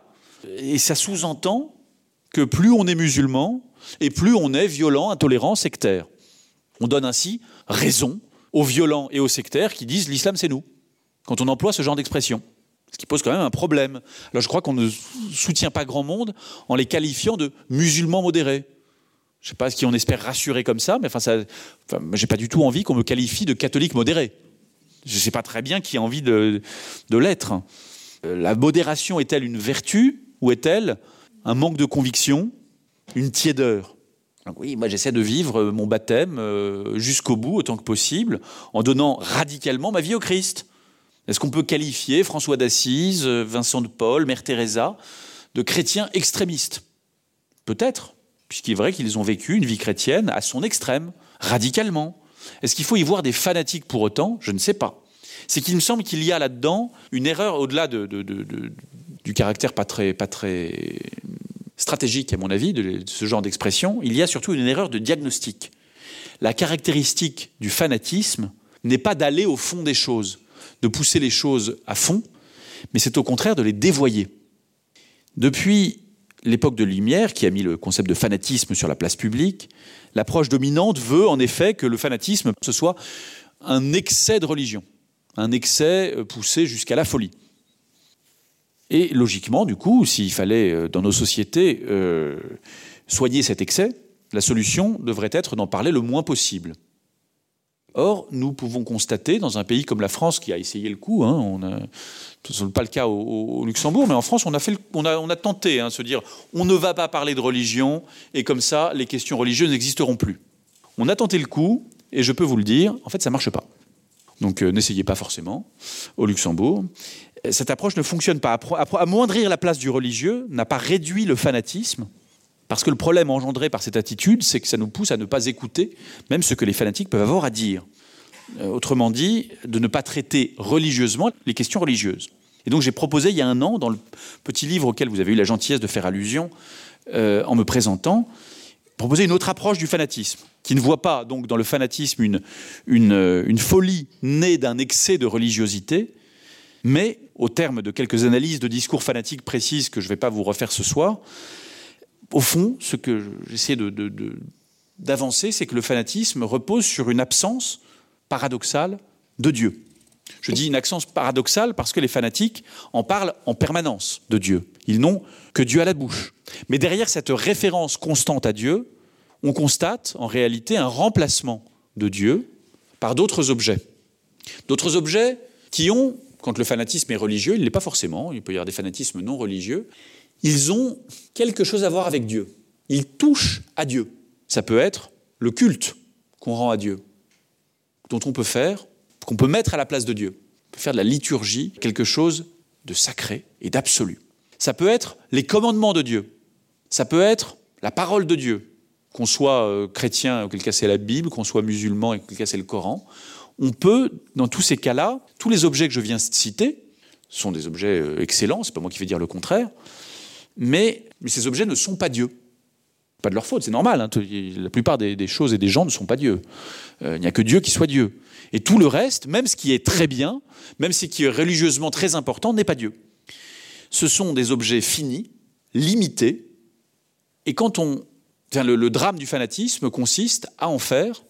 Et ça sous-entend que plus on est musulman et plus on est violent, intolérant, sectaire. On donne ainsi raison aux violents et aux sectaires qui disent l'islam c'est nous quand on emploie ce genre d'expression. Ce qui pose quand même un problème. Alors je crois qu'on ne soutient pas grand monde en les qualifiant de musulmans modérés. Je sais pas ce qui on espère rassurer comme ça, mais enfin ça, enfin, j'ai pas du tout envie qu'on me qualifie de catholique modéré. Je sais pas très bien qui a envie de, de l'être. Euh, la modération est-elle une vertu ou est-elle un manque de conviction, une tiédeur Donc oui, moi j'essaie de vivre euh, mon baptême euh, jusqu'au bout autant que possible en donnant radicalement ma vie au Christ. Est-ce qu'on peut qualifier François d'Assise, euh, Vincent de Paul, Mère Teresa de chrétiens extrémistes Peut-être, puisqu'il est vrai qu'ils ont vécu une vie chrétienne à son extrême, radicalement. Est-ce qu'il faut y voir des fanatiques pour autant Je ne sais pas. C'est qu'il me semble qu'il y a là-dedans une erreur au-delà de, de, de, de, du caractère pas très, pas très stratégique, à mon avis, de, de ce genre d'expression, il y a surtout une erreur de diagnostic. La caractéristique du fanatisme n'est pas d'aller au fond des choses, de pousser les choses à fond, mais c'est au contraire de les dévoyer. Depuis l'époque de Lumière, qui a mis le concept de fanatisme sur la place publique, l'approche dominante veut en effet que le fanatisme ce soit un excès de religion, un excès euh, poussé jusqu'à la folie. Et logiquement, du coup, s'il fallait euh, dans nos sociétés euh, soigner cet excès, la solution devrait être d'en parler le moins possible. Or, nous pouvons constater dans un pays comme la France qui a essayé le coup, hein, on a, ce n'est pas le cas au, au Luxembourg, mais en France on a, fait le, on a, on a tenté hein, se dire on ne va pas parler de religion et comme ça les questions religieuses n'existeront plus. On a tenté le coup et je peux vous le dire, en fait ça marche pas. Donc euh, n'essayez pas forcément au Luxembourg. Cette approche ne fonctionne pas. Amoindrir la place du religieux n'a pas réduit le fanatisme, parce que le problème engendré par cette attitude, c'est que ça nous pousse à ne pas écouter même ce que les fanatiques peuvent avoir à dire. Euh, autrement dit, de ne pas traiter religieusement les questions religieuses. Et donc j'ai proposé il y a un an, dans le petit livre auquel vous avez eu la gentillesse de faire allusion euh, en me présentant, proposer une autre approche du fanatisme, qui ne voit pas donc dans le fanatisme une, une, euh, une folie née d'un excès de religiosité, mais au terme de quelques analyses de discours fanatiques précises que je ne vais pas vous refaire ce soir, au fond, ce que j'essaie d'avancer, de, de, c'est que le fanatisme repose sur une absence paradoxale de Dieu. Je dis une absence paradoxale parce que les fanatiques en parlent en permanence de Dieu. Ils n'ont que Dieu à la bouche. Mais derrière cette référence constante à Dieu, on constate en réalité un remplacement de Dieu par d'autres objets. D'autres objets qui ont, quand le fanatisme est religieux, il n'est pas forcément, il peut y avoir des fanatismes non religieux, ils ont quelque chose à voir avec Dieu. Ils touchent à Dieu. Ça peut être le culte qu'on rend à Dieu, dont on peut faire, qu'on peut mettre à la place de Dieu. On peut faire de la liturgie quelque chose de sacré et d'absolu. Ça peut être les commandements de Dieu. Ça peut être la parole de Dieu. Qu'on soit euh, chrétien, auquel cas c'est la Bible, qu'on soit musulman, auquel cas c'est le Coran. On peut, dans tous ces cas-là, tous les objets que je viens de citer sont des objets euh, excellents, c'est pas moi qui vais dire le contraire, mais, mais ces objets ne sont pas Dieu. Pas de leur faute, c'est normal. Hein, la plupart des, des choses et des gens ne sont pas Dieu. Euh, il n'y a que Dieu qui soit Dieu. Et tout le reste, même ce qui est très bien, même ce qui est religieusement très important, n'est pas Dieu. Ce sont des objets finis, limités, et quand on. Enfin, le, le drame du fanatisme consiste à en faire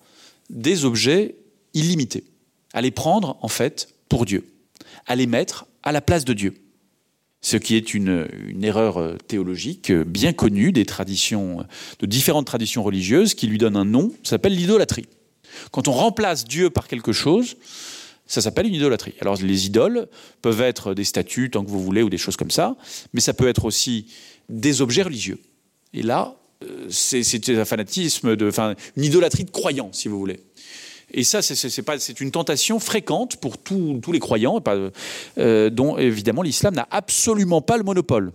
des objets illimités, à les prendre en fait pour Dieu, à les mettre à la place de Dieu. Ce qui est une, une erreur euh, théologique euh, bien connue des traditions, euh, de différentes traditions religieuses qui lui donnent un nom, ça s'appelle l'idolâtrie. Quand on remplace Dieu par quelque chose, ça s'appelle une idolâtrie. Alors les idoles peuvent être des statues tant que vous voulez ou des choses comme ça, mais ça peut être aussi des objets religieux. Et là, c'est un fanatisme de enfin une idolâtrie de croyants si vous voulez. Et ça c'est une tentation fréquente pour tout, tous les croyants pas, euh, dont évidemment l'islam n'a absolument pas le monopole.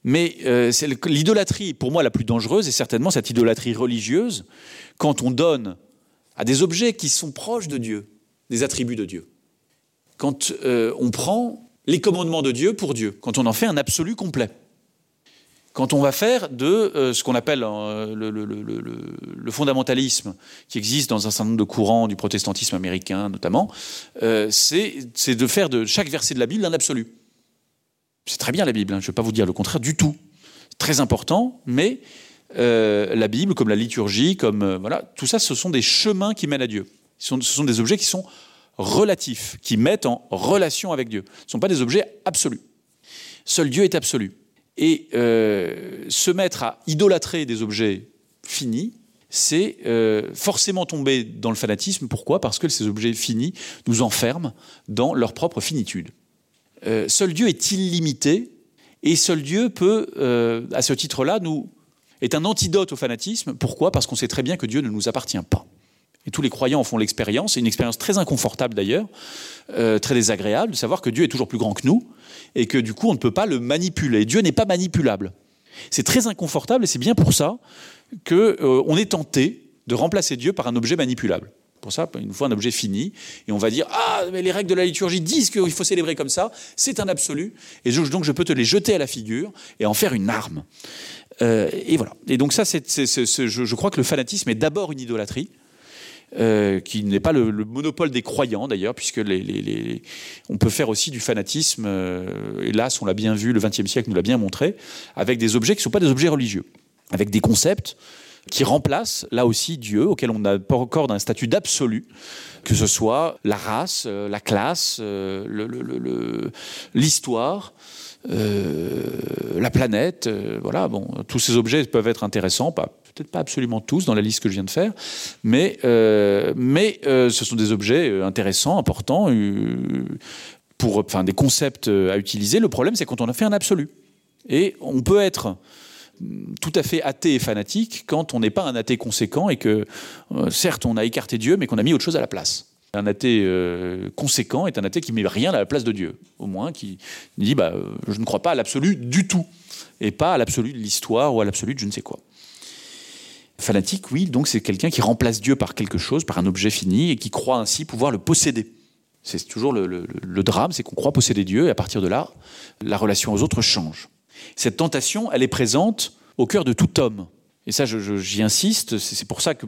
Mais euh, l'idolâtrie pour moi la plus dangereuse est certainement cette idolâtrie religieuse quand on donne à des objets qui sont proches de Dieu, des attributs de Dieu. Quand euh, on prend les commandements de Dieu pour Dieu, quand on en fait un absolu complet. Quand on va faire de euh, ce qu'on appelle euh, le, le, le, le, le fondamentalisme qui existe dans un certain nombre de courants du protestantisme américain notamment, euh, c'est de faire de chaque verset de la Bible un absolu. C'est très bien la Bible, hein, je ne vais pas vous dire le contraire du tout. Très important, mais euh, la Bible, comme la liturgie, comme euh, voilà, tout ça, ce sont des chemins qui mènent à Dieu. Ce sont, ce sont des objets qui sont relatifs, qui mettent en relation avec Dieu. Ce ne sont pas des objets absolus. Seul Dieu est absolu. Et euh, se mettre à idolâtrer des objets finis, c'est euh, forcément tomber dans le fanatisme. Pourquoi Parce que ces objets finis nous enferment dans leur propre finitude. Euh, seul Dieu est illimité et seul Dieu peut, euh, à ce titre-là, nous est un antidote au fanatisme. Pourquoi Parce qu'on sait très bien que Dieu ne nous appartient pas. Et tous les croyants en font l'expérience, une expérience très inconfortable d'ailleurs, euh, très désagréable, de savoir que Dieu est toujours plus grand que nous et que du coup on ne peut pas le manipuler. Dieu n'est pas manipulable. C'est très inconfortable et c'est bien pour ça que euh, on est tenté de remplacer Dieu par un objet manipulable. Pour ça, une fois un objet fini, et on va dire ah mais les règles de la liturgie disent qu'il faut célébrer comme ça, c'est un absolu, et donc je peux te les jeter à la figure et en faire une arme. Euh, et voilà. Et donc ça, c'est, c'est, c'est, c'est, je, je crois que le fanatisme est d'abord une idolâtrie. Euh, qui n'est pas le, le monopole des croyants d'ailleurs puisque les, les, les, on peut faire aussi du fanatisme euh, hélas on l'a bien vu le XXe siècle nous l'a bien montré avec des objets qui ne sont pas des objets religieux avec des concepts qui remplacent là aussi Dieu auquel on n'a pas encore d'un statut d'absolu que ce soit la race euh, la classe euh, l'histoire euh, la planète euh, voilà bon tous ces objets peuvent être intéressants pas peut-être pas absolument tous dans la liste que je viens de faire mais euh, mais euh, ce sont des objets euh, intéressants importants euh, pour enfin des concepts euh, à utiliser le problème c'est quand on a fait un absolu et on peut être mm, tout à fait athée et fanatique quand on n'est pas un athée conséquent et que euh, certes on a écarté dieu mais qu'on a mis autre chose à la place un athée euh, conséquent est un athée qui met rien à la place de dieu au moins qui dit bah euh, je ne crois pas à l'absolu du tout et pas à l'absolu de l'histoire ou à l'absolu de je ne sais quoi Fanatique, oui, donc c'est quelqu'un qui remplace Dieu par quelque chose, par un objet fini, et qui croit ainsi pouvoir le posséder. C'est toujours le, le, le drame, c'est qu'on croit posséder Dieu et à partir de là, la relation aux autres change. Cette tentation, elle est présente au cœur de tout homme. Et ça, j'y insiste, c'est pour ça que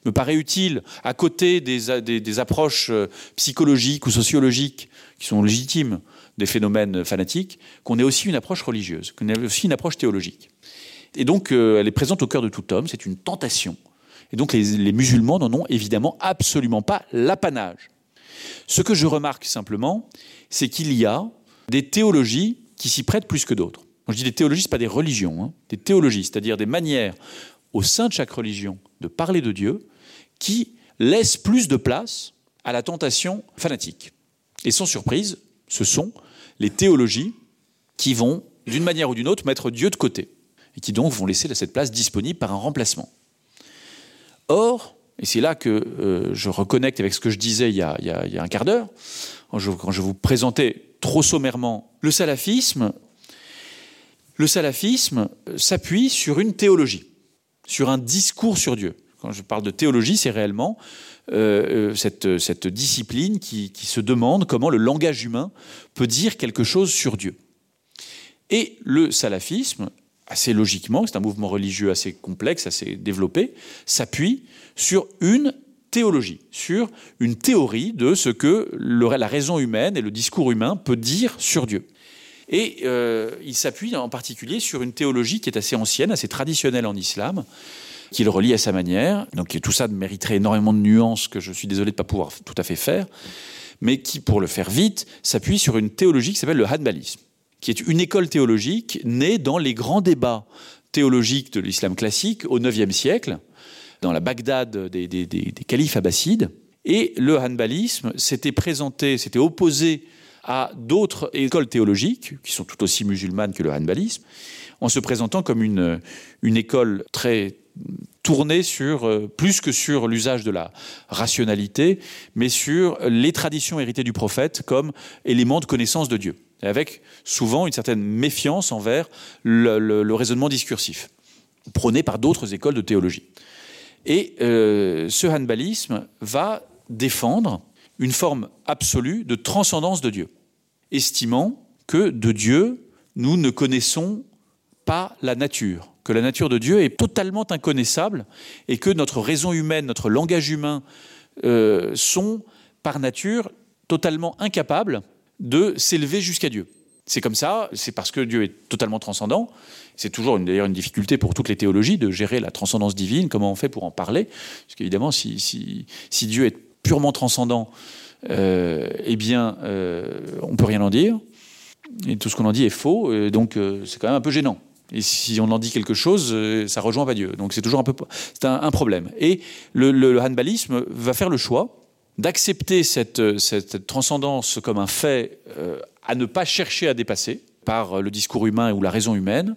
me paraît utile, à côté des, des, des approches euh, psychologiques ou sociologiques qui sont légitimes des phénomènes fanatiques, qu'on ait aussi une approche religieuse, qu'on ait aussi une approche théologique. Et donc, euh, elle est présente au cœur de tout homme, c'est une tentation. Et donc, les, les musulmans n'en ont évidemment absolument pas l'apanage. Ce que je remarque simplement, c'est qu'il y a des théologies qui s'y prêtent plus que d'autres. Quand je dis des théologies, ce pas des religions, hein, des théologies, c'est-à-dire des manières au sein de chaque religion de parler de Dieu qui laissent plus de place à la tentation fanatique. Et sans surprise, ce sont les théologies qui vont, d'une manière ou d'une autre, mettre Dieu de côté et qui donc vont laisser cette place disponible par un remplacement. Or, et c'est là que euh, je reconnecte avec ce que je disais il y a, il y a, il y a un quart d'heure, quand je, quand je vous présentais trop sommairement le salafisme, le salafisme euh, s'appuie sur une théologie, sur un discours sur Dieu. Quand je parle de théologie, c'est réellement euh, euh, cette, cette discipline qui, qui se demande comment le langage humain peut dire quelque chose sur Dieu. Et le salafisme, assez logiquement, c'est un mouvement religieux assez complexe, assez développé, s'appuie sur une théologie, sur une théorie de ce que le, la raison humaine et le discours humain peut dire sur Dieu. Et euh, il s'appuie en particulier sur une théologie qui est assez ancienne, assez traditionnelle en islam, qu'il relie à sa manière. Donc tout ça mériterait énormément de nuances que je suis désolé de ne pas pouvoir tout à fait faire, mais qui, pour le faire vite, s'appuie sur une théologie qui s'appelle le hanbalisme, qui est une école théologique née dans les grands débats théologiques de l'islam classique au IXe siècle, dans la Bagdad des, des, des, des califes abbassides. Et le hanbalisme s'était présenté, s'était opposé à d'autres écoles théologiques, qui sont tout aussi musulmanes que le hanbalisme, en se présentant comme une, une école très tournée sur euh, plus que sur l'usage de la rationalité, mais sur les traditions héritées du prophète comme élément de connaissance de Dieu, avec souvent une certaine méfiance envers le, le, le raisonnement discursif, prôné par d'autres écoles de théologie. Et euh, ce hanbalisme va défendre une forme absolue de transcendance de Dieu, estimant que de Dieu, nous ne connaissons pas la nature, que la nature de Dieu est totalement inconnaissable et que notre raison humaine, notre langage humain euh, sont par nature totalement incapables de s'élever jusqu'à Dieu. C'est comme ça, c'est parce que Dieu est totalement transcendant. C'est toujours d'ailleurs une difficulté pour toutes les théologies de gérer la transcendance divine, comment on fait pour en parler, parce qu'évidemment si, si, si Dieu est purement transcendant, euh, eh bien euh, on peut rien en dire et tout ce qu'on en dit est faux et donc euh, c'est quand même un peu gênant. Et si on en dit quelque chose, euh, ça rejoint pas Dieu. Donc c'est toujours un peu c'est un, un problème. Et le, le, le hanbalisme va faire le choix d'accepter cette, euh, cette, cette transcendance comme un fait euh, à ne pas chercher à dépasser par euh, le discours humain ou la raison humaine,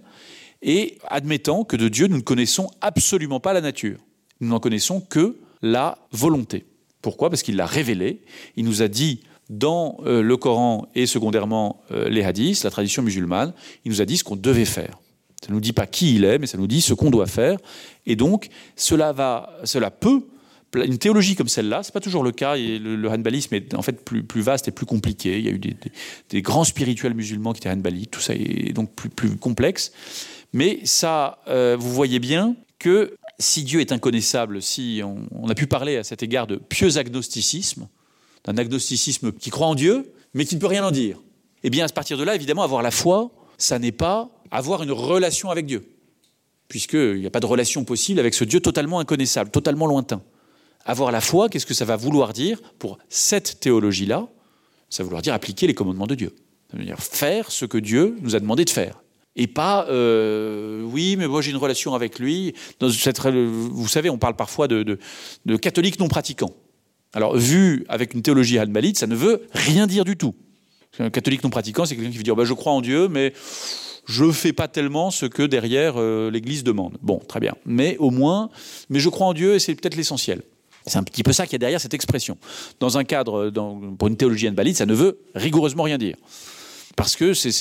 et admettant que de Dieu nous ne connaissons absolument pas la nature. Nous n'en connaissons que la volonté. Pourquoi Parce qu'il l'a révélé, il nous a dit dans euh, le Coran et secondairement euh, les hadiths, la tradition musulmane, il nous a dit ce qu'on devait faire. Ça ne nous dit pas qui il est, mais ça nous dit ce qu'on doit faire. Et donc cela va cela peut une théologie comme celle-là, c'est pas toujours le cas et le, le hanbalisme est en fait plus, plus vaste et plus compliqué. Il y a eu des, des, des grands spirituels musulmans qui étaient hanbalites, tout ça est donc plus, plus complexe. Mais ça euh, vous voyez bien que si Dieu est inconnaissable, si on, on a pu parler à cet égard de pieux agnosticisme, d'un agnosticisme qui croit en Dieu, mais qui ne peut rien en dire. Eh bien à partir de là, évidemment, avoir la foi, ça n'est pas avoir une relation avec Dieu, puisqu'il n'y a pas de relation possible avec ce Dieu totalement inconnaissable, totalement lointain. Avoir la foi, qu'est-ce que ça va vouloir dire pour cette théologie-là Ça va vouloir dire appliquer les commandements de Dieu. Ça veut dire faire ce que Dieu nous a demandé de faire. Et pas euh, oui, mais moi j'ai une relation avec lui. Dans cette, vous savez, on parle parfois de, de, de catholiques non pratiquants. Alors, vu avec une théologie hanbalite, ça ne veut rien dire du tout. Un catholique non pratiquant, c'est quelqu'un qui veut dire bah, je crois en Dieu, mais je fais pas tellement ce que derrière euh, l'Église demande. Bon, très bien. Mais au moins, mais je crois en Dieu et c'est peut-être l'essentiel. C'est un petit peu ça qu'il y a derrière cette expression. Dans un cadre, dans, pour une théologie hanbalite, ça ne veut rigoureusement rien dire. Parce que c'est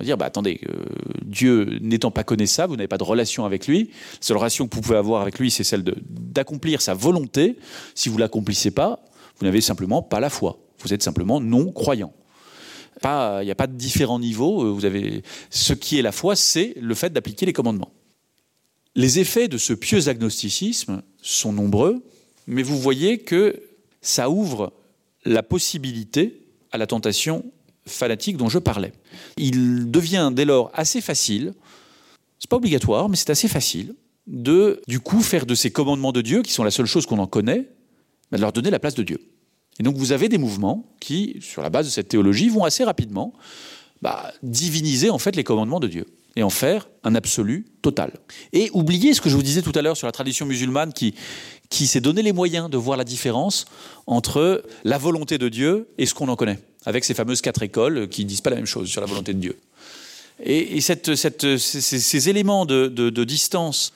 dire bah, attendez, euh, Dieu n'étant pas connaissable, vous n'avez pas de relation avec lui. La seule relation que vous pouvez avoir avec lui, c'est celle d'accomplir sa volonté. Si vous l'accomplissez pas, vous n'avez simplement pas la foi. Vous êtes simplement non croyant. Pas, il n'y a pas de différents niveaux. Euh, vous avez ce qui est la foi, c'est le fait d'appliquer les commandements. Les effets de ce pieux agnosticisme sont nombreux, mais vous voyez que ça ouvre la possibilité à la tentation fanatique dont je parlais. Il devient dès lors assez facile, c'est pas obligatoire, mais c'est assez facile de du coup faire de ces commandements de Dieu qui sont la seule chose qu'on en connaît, de leur donner la place de Dieu. Et donc vous avez des mouvements qui, sur la base de cette théologie, vont assez rapidement bah, diviniser en fait les commandements de Dieu et en faire un absolu total. Et oubliez ce que je vous disais tout à l'heure sur la tradition musulmane qui, qui s'est donné les moyens de voir la différence entre la volonté de Dieu et ce qu'on en connaît, avec ces fameuses quatre écoles qui disent pas la même chose sur la volonté de Dieu. Et, et cette, cette, ces, ces éléments de, de, de distance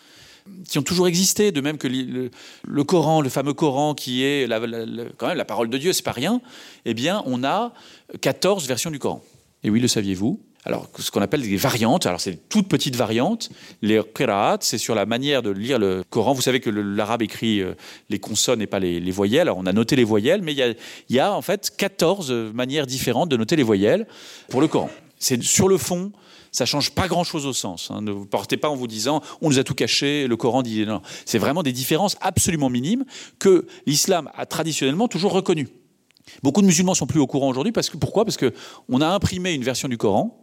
qui ont toujours existé, de même que le, le Coran, le fameux Coran qui est la, la, la, quand même la parole de Dieu, c'est pas rien, eh bien on a 14 versions du Coran. Et oui, le saviez-vous Alors ce qu'on appelle des variantes, alors c'est toutes petites variantes, les qiraat, c'est sur la manière de lire le Coran. Vous savez que l'arabe écrit euh, les consonnes et pas les, les voyelles. Alors on a noté les voyelles, mais il y a, y a en fait 14 manières différentes de noter les voyelles pour le Coran. C'est sur le fond, ça change pas grand chose au sens hein. Ne vous portez pas en vous disant on nous a tout caché, le Coran dit non. C'est vraiment des différences absolument minimes que l'islam a traditionnellement toujours reconnues. Beaucoup de musulmans sont plus au courant aujourd'hui parce que pourquoi parce que on a imprimé une version du Coran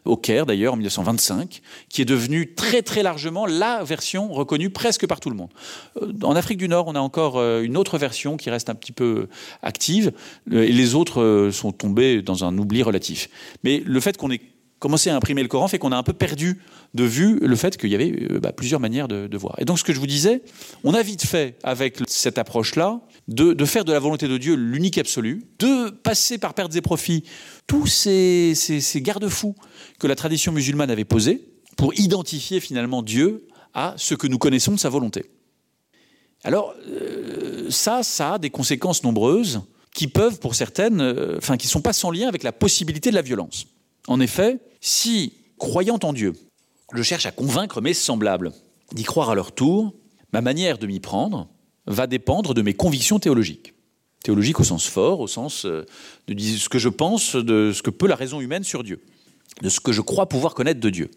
au Caire d'ailleurs en 1925 qui est devenue très très largement la version reconnue presque par tout le monde. Euh, en Afrique du Nord, on a encore euh, une autre version qui reste un petit peu active euh, et les autres sont tombés dans un oubli relatif. Mais le fait qu'on ait commencé à imprimer le Coran fait qu'on a un peu perdu de vue le fait qu'il y avait euh, bah, plusieurs manières de, de voir. Et donc ce que je vous disais, on a vite fait avec cette approche-là de, de faire de la volonté de Dieu l'unique absolu, de passer par pertes et profits tous ces, ces, ces garde-fous que la tradition musulmane avait posés pour identifier finalement Dieu à ce que nous connaissons de sa volonté. Alors euh, ça, ça a des conséquences nombreuses qui peuvent pour certaines, euh, enfin euh, qui sont pas sans lien avec la possibilité de la violence. En effet, si, croyant en Dieu, je cherche à convaincre mes semblables d'y croire à leur tour, ma manière de m'y prendre va dépendre de mes convictions théologiques. Théologiques au sens fort, au sens euh, de ce que je pense de ce que peut la raison humaine sur Dieu, de ce que je crois pouvoir connaître de Dieu.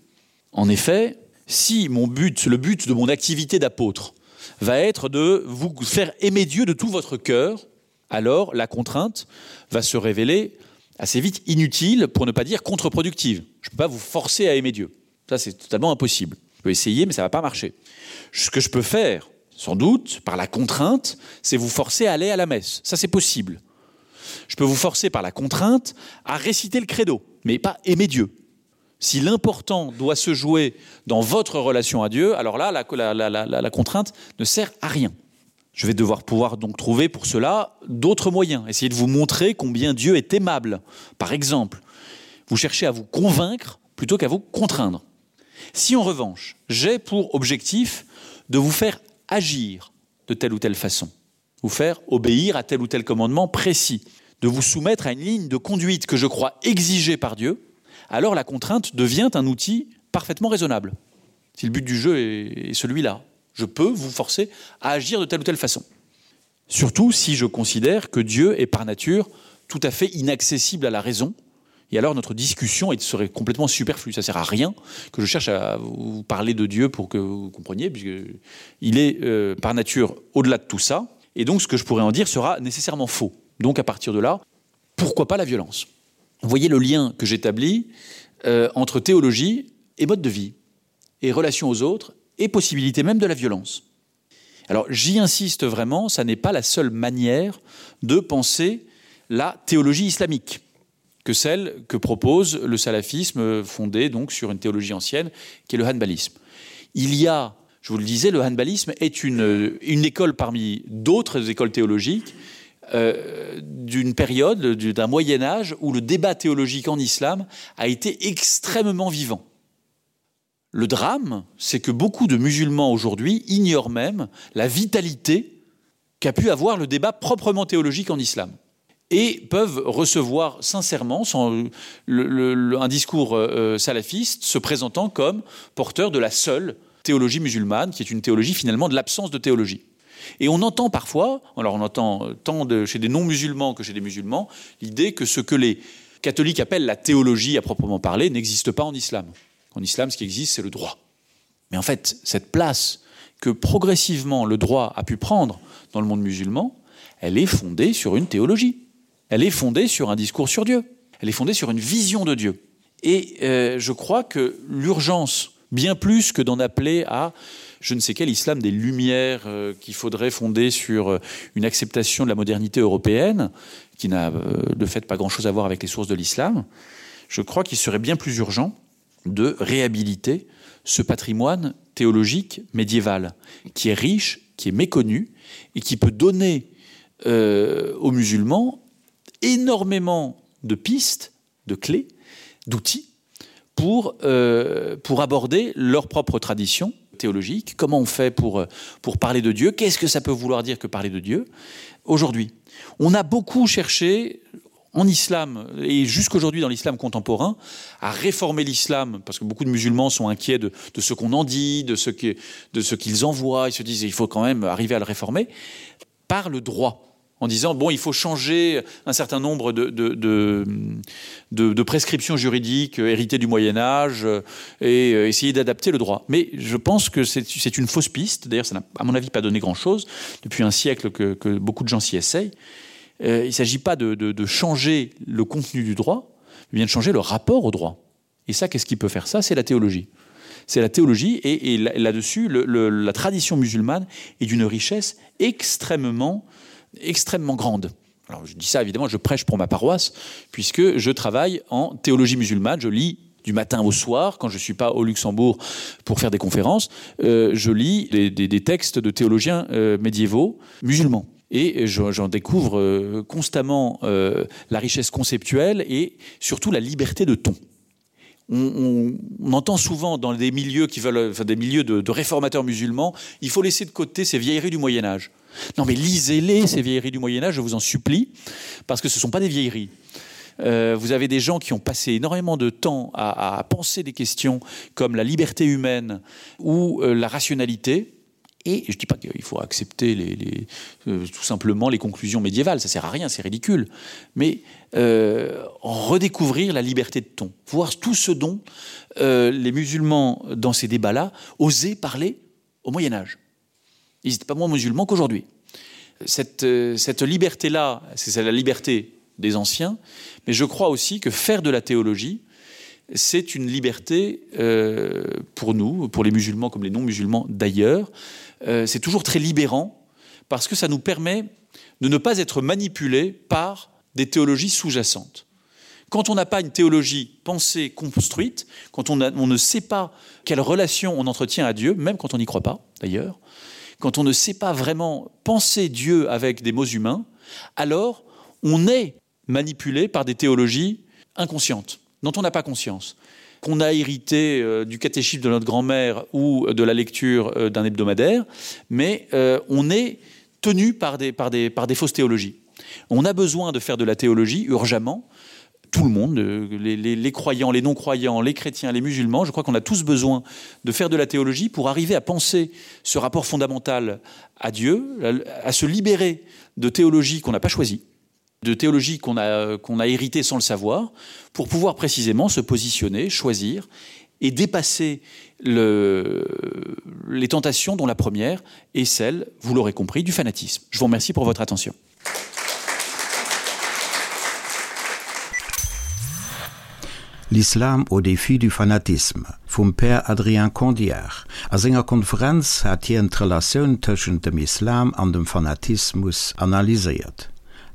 En effet, si mon but, le but de mon activité d'apôtre va être de vous faire aimer Dieu de tout votre cœur, alors la contrainte va se révéler assez vite inutile pour ne pas dire contre-productive. Je peux pas vous forcer à aimer Dieu. Ça c'est totalement impossible. Je peux essayer mais ça va pas marcher. Ce que je peux faire, sans doute par la contrainte, c'est vous forcer à aller à la messe. Ça c'est possible. Je peux vous forcer par la contrainte à réciter le credo, mais pas aimer Dieu. Si l'important doit se jouer dans votre relation à Dieu, alors là la, la, la, la, la contrainte ne sert à rien. Je vais devoir pouvoir donc trouver pour cela d'autres moyens, essayer de vous montrer combien Dieu est aimable. Par exemple, vous cherchez à vous convaincre plutôt qu'à vous contraindre. Si en revanche, j'ai pour objectif de vous faire agir de telle ou telle façon, vous faire obéir à tel ou tel commandement précis, de vous soumettre à une ligne de conduite que je crois exigée par Dieu, alors la contrainte devient un outil parfaitement raisonnable. Si le but du jeu est celui-là, je peux vous forcer à agir de telle ou telle façon. Surtout si je considère que Dieu est par nature tout à fait inaccessible à la raison, et alors notre discussion serait complètement superflue. Ça sert à rien que je cherche à vous parler de Dieu pour que vous compreniez, puisque il est euh, par nature au-delà de tout ça, et donc ce que je pourrais en dire sera nécessairement faux. Donc à partir de là, pourquoi pas la violence Vous voyez le lien que j'établis euh, entre théologie et mode de vie, et relation aux autres, et possibilité même de la violence. Alors j'y insiste vraiment, ça n'est pas la seule manière de penser la théologie islamique que celle que propose le salafisme fondé donc sur une théologie ancienne qui est le hanbalisme. Il y a, je vous le disais, le hanbalisme est une, une école parmi d'autres écoles théologiques euh, d'une période d'un moyen âge où le débat théologique en islam a été extrêmement vivant. Le drame, c'est que beaucoup de musulmans aujourd'hui ignorent même la vitalité qu'a pu avoir le débat proprement théologique en islam et peuvent recevoir sincèrement sans le, le, le, un discours euh, salafiste se présentant comme porteur de la seule théologie musulmane, qui est une théologie finalement de l'absence de théologie. Et on entend parfois, alors on entend euh, tant de, chez des non-musulmans que chez des musulmans, l'idée que ce que les catholiques appellent la théologie à proprement parler n'existe pas en islam. En islam, ce qui existe, c'est le droit. Mais en fait, cette place que progressivement le droit a pu prendre dans le monde musulman, elle est fondée sur une théologie. Elle est fondée sur un discours sur Dieu. Elle est fondée sur une vision de Dieu. Et euh, je crois que l'urgence, bien plus que d'en appeler à je ne sais quel islam des lumières euh, qu'il faudrait fonder sur euh, une acceptation de la modernité européenne, qui n'a euh, de fait pas grand-chose à voir avec les sources de l'islam, je crois qu'il serait bien plus urgent de réhabiliter ce patrimoine théologique médiéval, qui est riche, qui est méconnu et qui peut donner euh, aux musulmans énormément de pistes, de clés, d'outils pour, euh, pour aborder leur propre tradition théologique, comment on fait pour, pour parler de Dieu, qu'est-ce que ça peut vouloir dire que parler de Dieu aujourd'hui. On a beaucoup cherché en islam et jusqu'aujourd'hui dans l'islam contemporain à réformer l'islam parce que beaucoup de musulmans sont inquiets de, de ce qu'on en dit, de ce qu'ils qu envoient, ils se disent il faut quand même arriver à le réformer par le droit en disant bon il faut changer un certain nombre de, de, de, de, de prescriptions juridiques héritées du Moyen Âge euh, et euh, essayer d'adapter le droit. Mais je pense que c'est une fausse piste, d'ailleurs ça n'a à mon avis pas donné grand chose depuis un siècle que, que beaucoup de gens s'y essayent. Euh, il ne s'agit pas de, de, de changer le contenu du droit, mais bien de changer le rapport au droit. Et ça, qu'est-ce qui peut faire ça C'est la théologie. C'est la théologie et, et là-dessus, le, le, la tradition musulmane est d'une richesse extrêmement, extrêmement grande. Alors je dis ça évidemment, je prêche pour ma paroisse, puisque je travaille en théologie musulmane, je lis du matin au soir, quand je ne suis pas au Luxembourg pour faire des conférences, euh, je lis des, des, des textes de théologiens euh, médiévaux musulmans et j'en découvre euh, constamment euh, la richesse conceptuelle et surtout la liberté de ton. On, on, on entend souvent dans des milieux qui veulent enfin des milieux de, de réformateurs musulmans, il faut laisser de côté ces vieilleries du Moyen Âge. Non mais lisez-les ces vieilleries du Moyen Âge, je vous en supplie, parce que ce ne sont pas des vieilleries. Euh, vous avez des gens qui ont passé énormément de temps à, à penser des questions comme la liberté humaine ou euh, la rationalité, Et je ne dis pas qu'il faut accepter les, les, euh, tout simplement les conclusions médiévales, ça sert à rien, c'est ridicule. Mais euh, redécouvrir la liberté de ton, voir tout ce dont euh, les musulmans, dans ces débats-là, osaient parler au Moyen Âge. Ils n'étaient pas moins musulmans qu'aujourd'hui. Cette, euh, cette liberté-là, c'est la liberté des anciens, mais je crois aussi que faire de la théologie, c'est une liberté euh, pour nous, pour les musulmans comme les non-musulmans d'ailleurs, euh, c'est toujours très libérant parce que ça nous permet de ne pas être manipulé par des théologies sous-jacentes. Quand on n'a pas une théologie pensée construite, quand on, a, on ne sait pas quelle relation on entretient à Dieu, même quand on n'y croit pas d'ailleurs, quand on ne sait pas vraiment penser Dieu avec des mots humains, alors on est manipulé par des théologies inconscientes dont on n'a pas conscience qu'on a hérité euh, du catéchisme de notre grand-mère ou de la lecture euh, d'un hebdomadaire, mais euh, on est tenu par des, par, des, par des fausses théologies. On a besoin de faire de la théologie urgemment, tout le monde, euh, les, les, les croyants, les non-croyants, les chrétiens, les musulmans, je crois qu'on a tous besoin de faire de la théologie pour arriver à penser ce rapport fondamental à Dieu, à, à se libérer de théologie qu'on n'a pas choisie de théologie qu'on a, qu'on a hérité sans le savoir, pour pouvoir précisément se positionner, choisir et dépasser le, les tentations dont la première est celle, vous l'aurez compris, du fanatisme. Je vous remercie pour votre attention. L'Islam au défi du fanatisme vum Père Adrien Condiard. A senger Konferenz hat hien d'Relatioun tëschent dem Islam an dem Fanatismus analyséiert.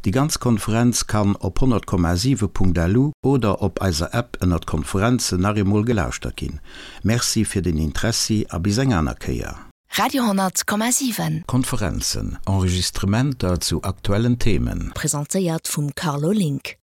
Déi ganz Konferenz kann op 100,7.lu oder op eiser App ënnert Konferenzen nach eemol gelauschtert ginn. Merci fir den Interessi a bis eng aner Kéier. Radio 10,7. Konferenzen, Enregistrementer zu aktuellen Themen. Presentéiert vum Carlo Link.